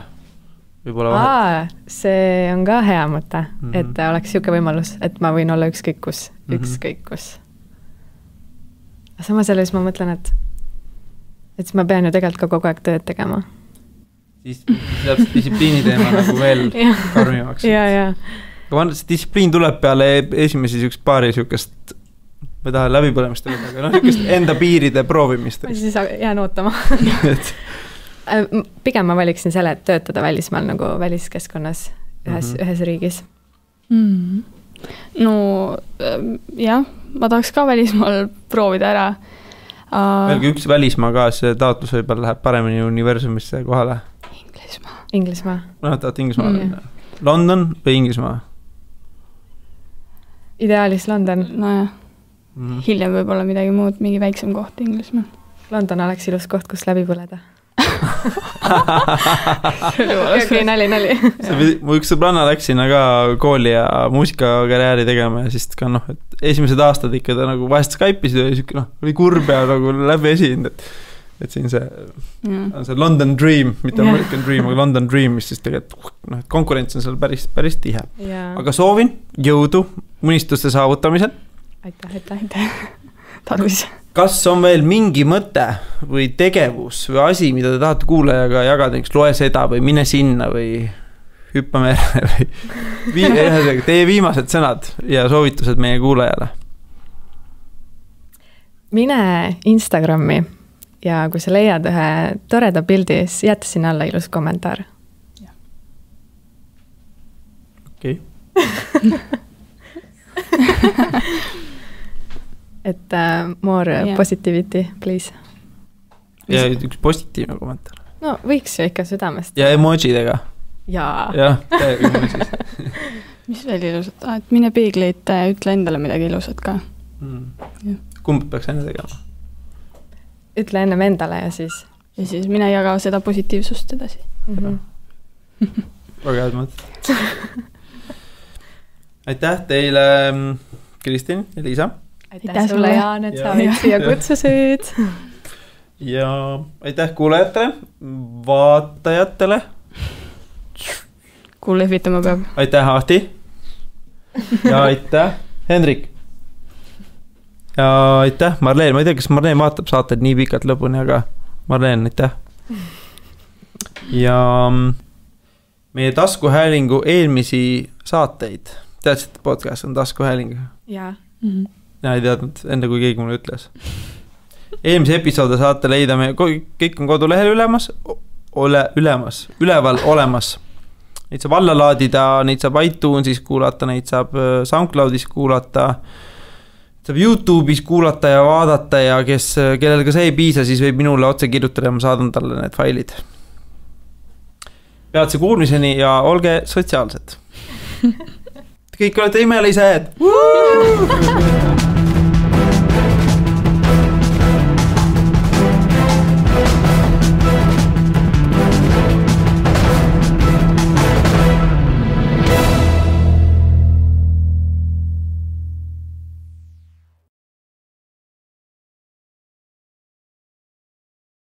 See on ka hea mõte, et oleks siuke võimalus, et ma võin olla ükskõik kus. Samas selles ma mõtlen, et siis ma pean ju tegelikult ka kogu aeg tööd tegema. Siis läheb distsipliini teema nagu veel karmimaks. Ja. Aga see distsipliin tuleb peale esimesi siukest paari siukest, ma ei taha läbipõlemist öelda, aga siukest enda piiride proovimist. Ma siis jään ootama. Pigem ma valiksin selle, et töötada välismaal nagu väliskeskkonnas ühes riigis. No jah, ma tahaks ka välismaal proovida ära. Veel üks välismaa ka, see taotlus võib-olla läheb paremini universumisse kohale. Inglismaa. No, tahad Inglismaa. London või Inglismaa? Ideaalis London. Nojah. Hiljem võib-olla midagi muud, mingi väiksem koht Inglismaa. London oleks ilus koht, kus läbi põleda. Okay, nali. Mu üks sõbranna läks sinna ka kooli ja muusikakarjääri tegema ja siis ka et esimesed aastad ikka ta nagu vahest Skype'isid ja oli kurb ja nagu läbi esind, et siin on see London Dream, mitte American Dream, aga London Dream, mis siis tegelikult konkurents on seal päris tihe. Aga soovin jõudu unistuste saavutamisel. Aitäh. Tarvis. Kas on veel mingi mõte või tegevus või asi, mida te tahate kuulajaga jagada, näiteks loe seda või mine sinna või hüppa merre või teie viimased sõnad ja soovitused meie kuulajale? Mine Instagrami ja kui sa leiad ühe toreda pildi, siis jäta sinna alla ilus kommentaar. Okei. Et more positivity, please. Ja üks positiivne kommentaar. No võiks ju ikka südamest. Ja emojidega. Jaa, emojis. Mis veel ilusat? Et mine peegleid, ütle endale midagi ilusat ka. Kumb peaks enne tegema? Ütle ennem endale ja siis mine jaga seda positiivsust edasi. Väga head mõtted. Aitäh teile, Kristin ja Liisa. Aitäh sulle, Jaan, et sa olid siia kutsusid. Ja aitäh kuulajatele, vaatajatele. Kuule lehvitama peab. Aitäh, Ahti. Ja aitäh, Hendrik. Ja aitäh, Marleen. Ma ei tea, kas Marleen vaatab saated nii pikalt lõpuni, aga Marleen, aitäh. Ja meie taskuhäälingu eelmisi saateid. Teadsid, et podcast on taskuhääling? Jaa. Ja ei teadnud, enne kui keegi mulle ütles. Eelmise episoode saate leida me, kõik on kodulehel üleval olemas. Neid saab alla laadida, neid saab iTunesis kuulata, neid saab SoundCloudis kuulata, saab YouTube'is kuulata ja vaadata ja kellel ka see ei piisa, siis võib minule otse kirjutada ja ma saadan talle need failid. Peatse kuulmiseni ja olge sotsiaalsed. Kõik olete imelised!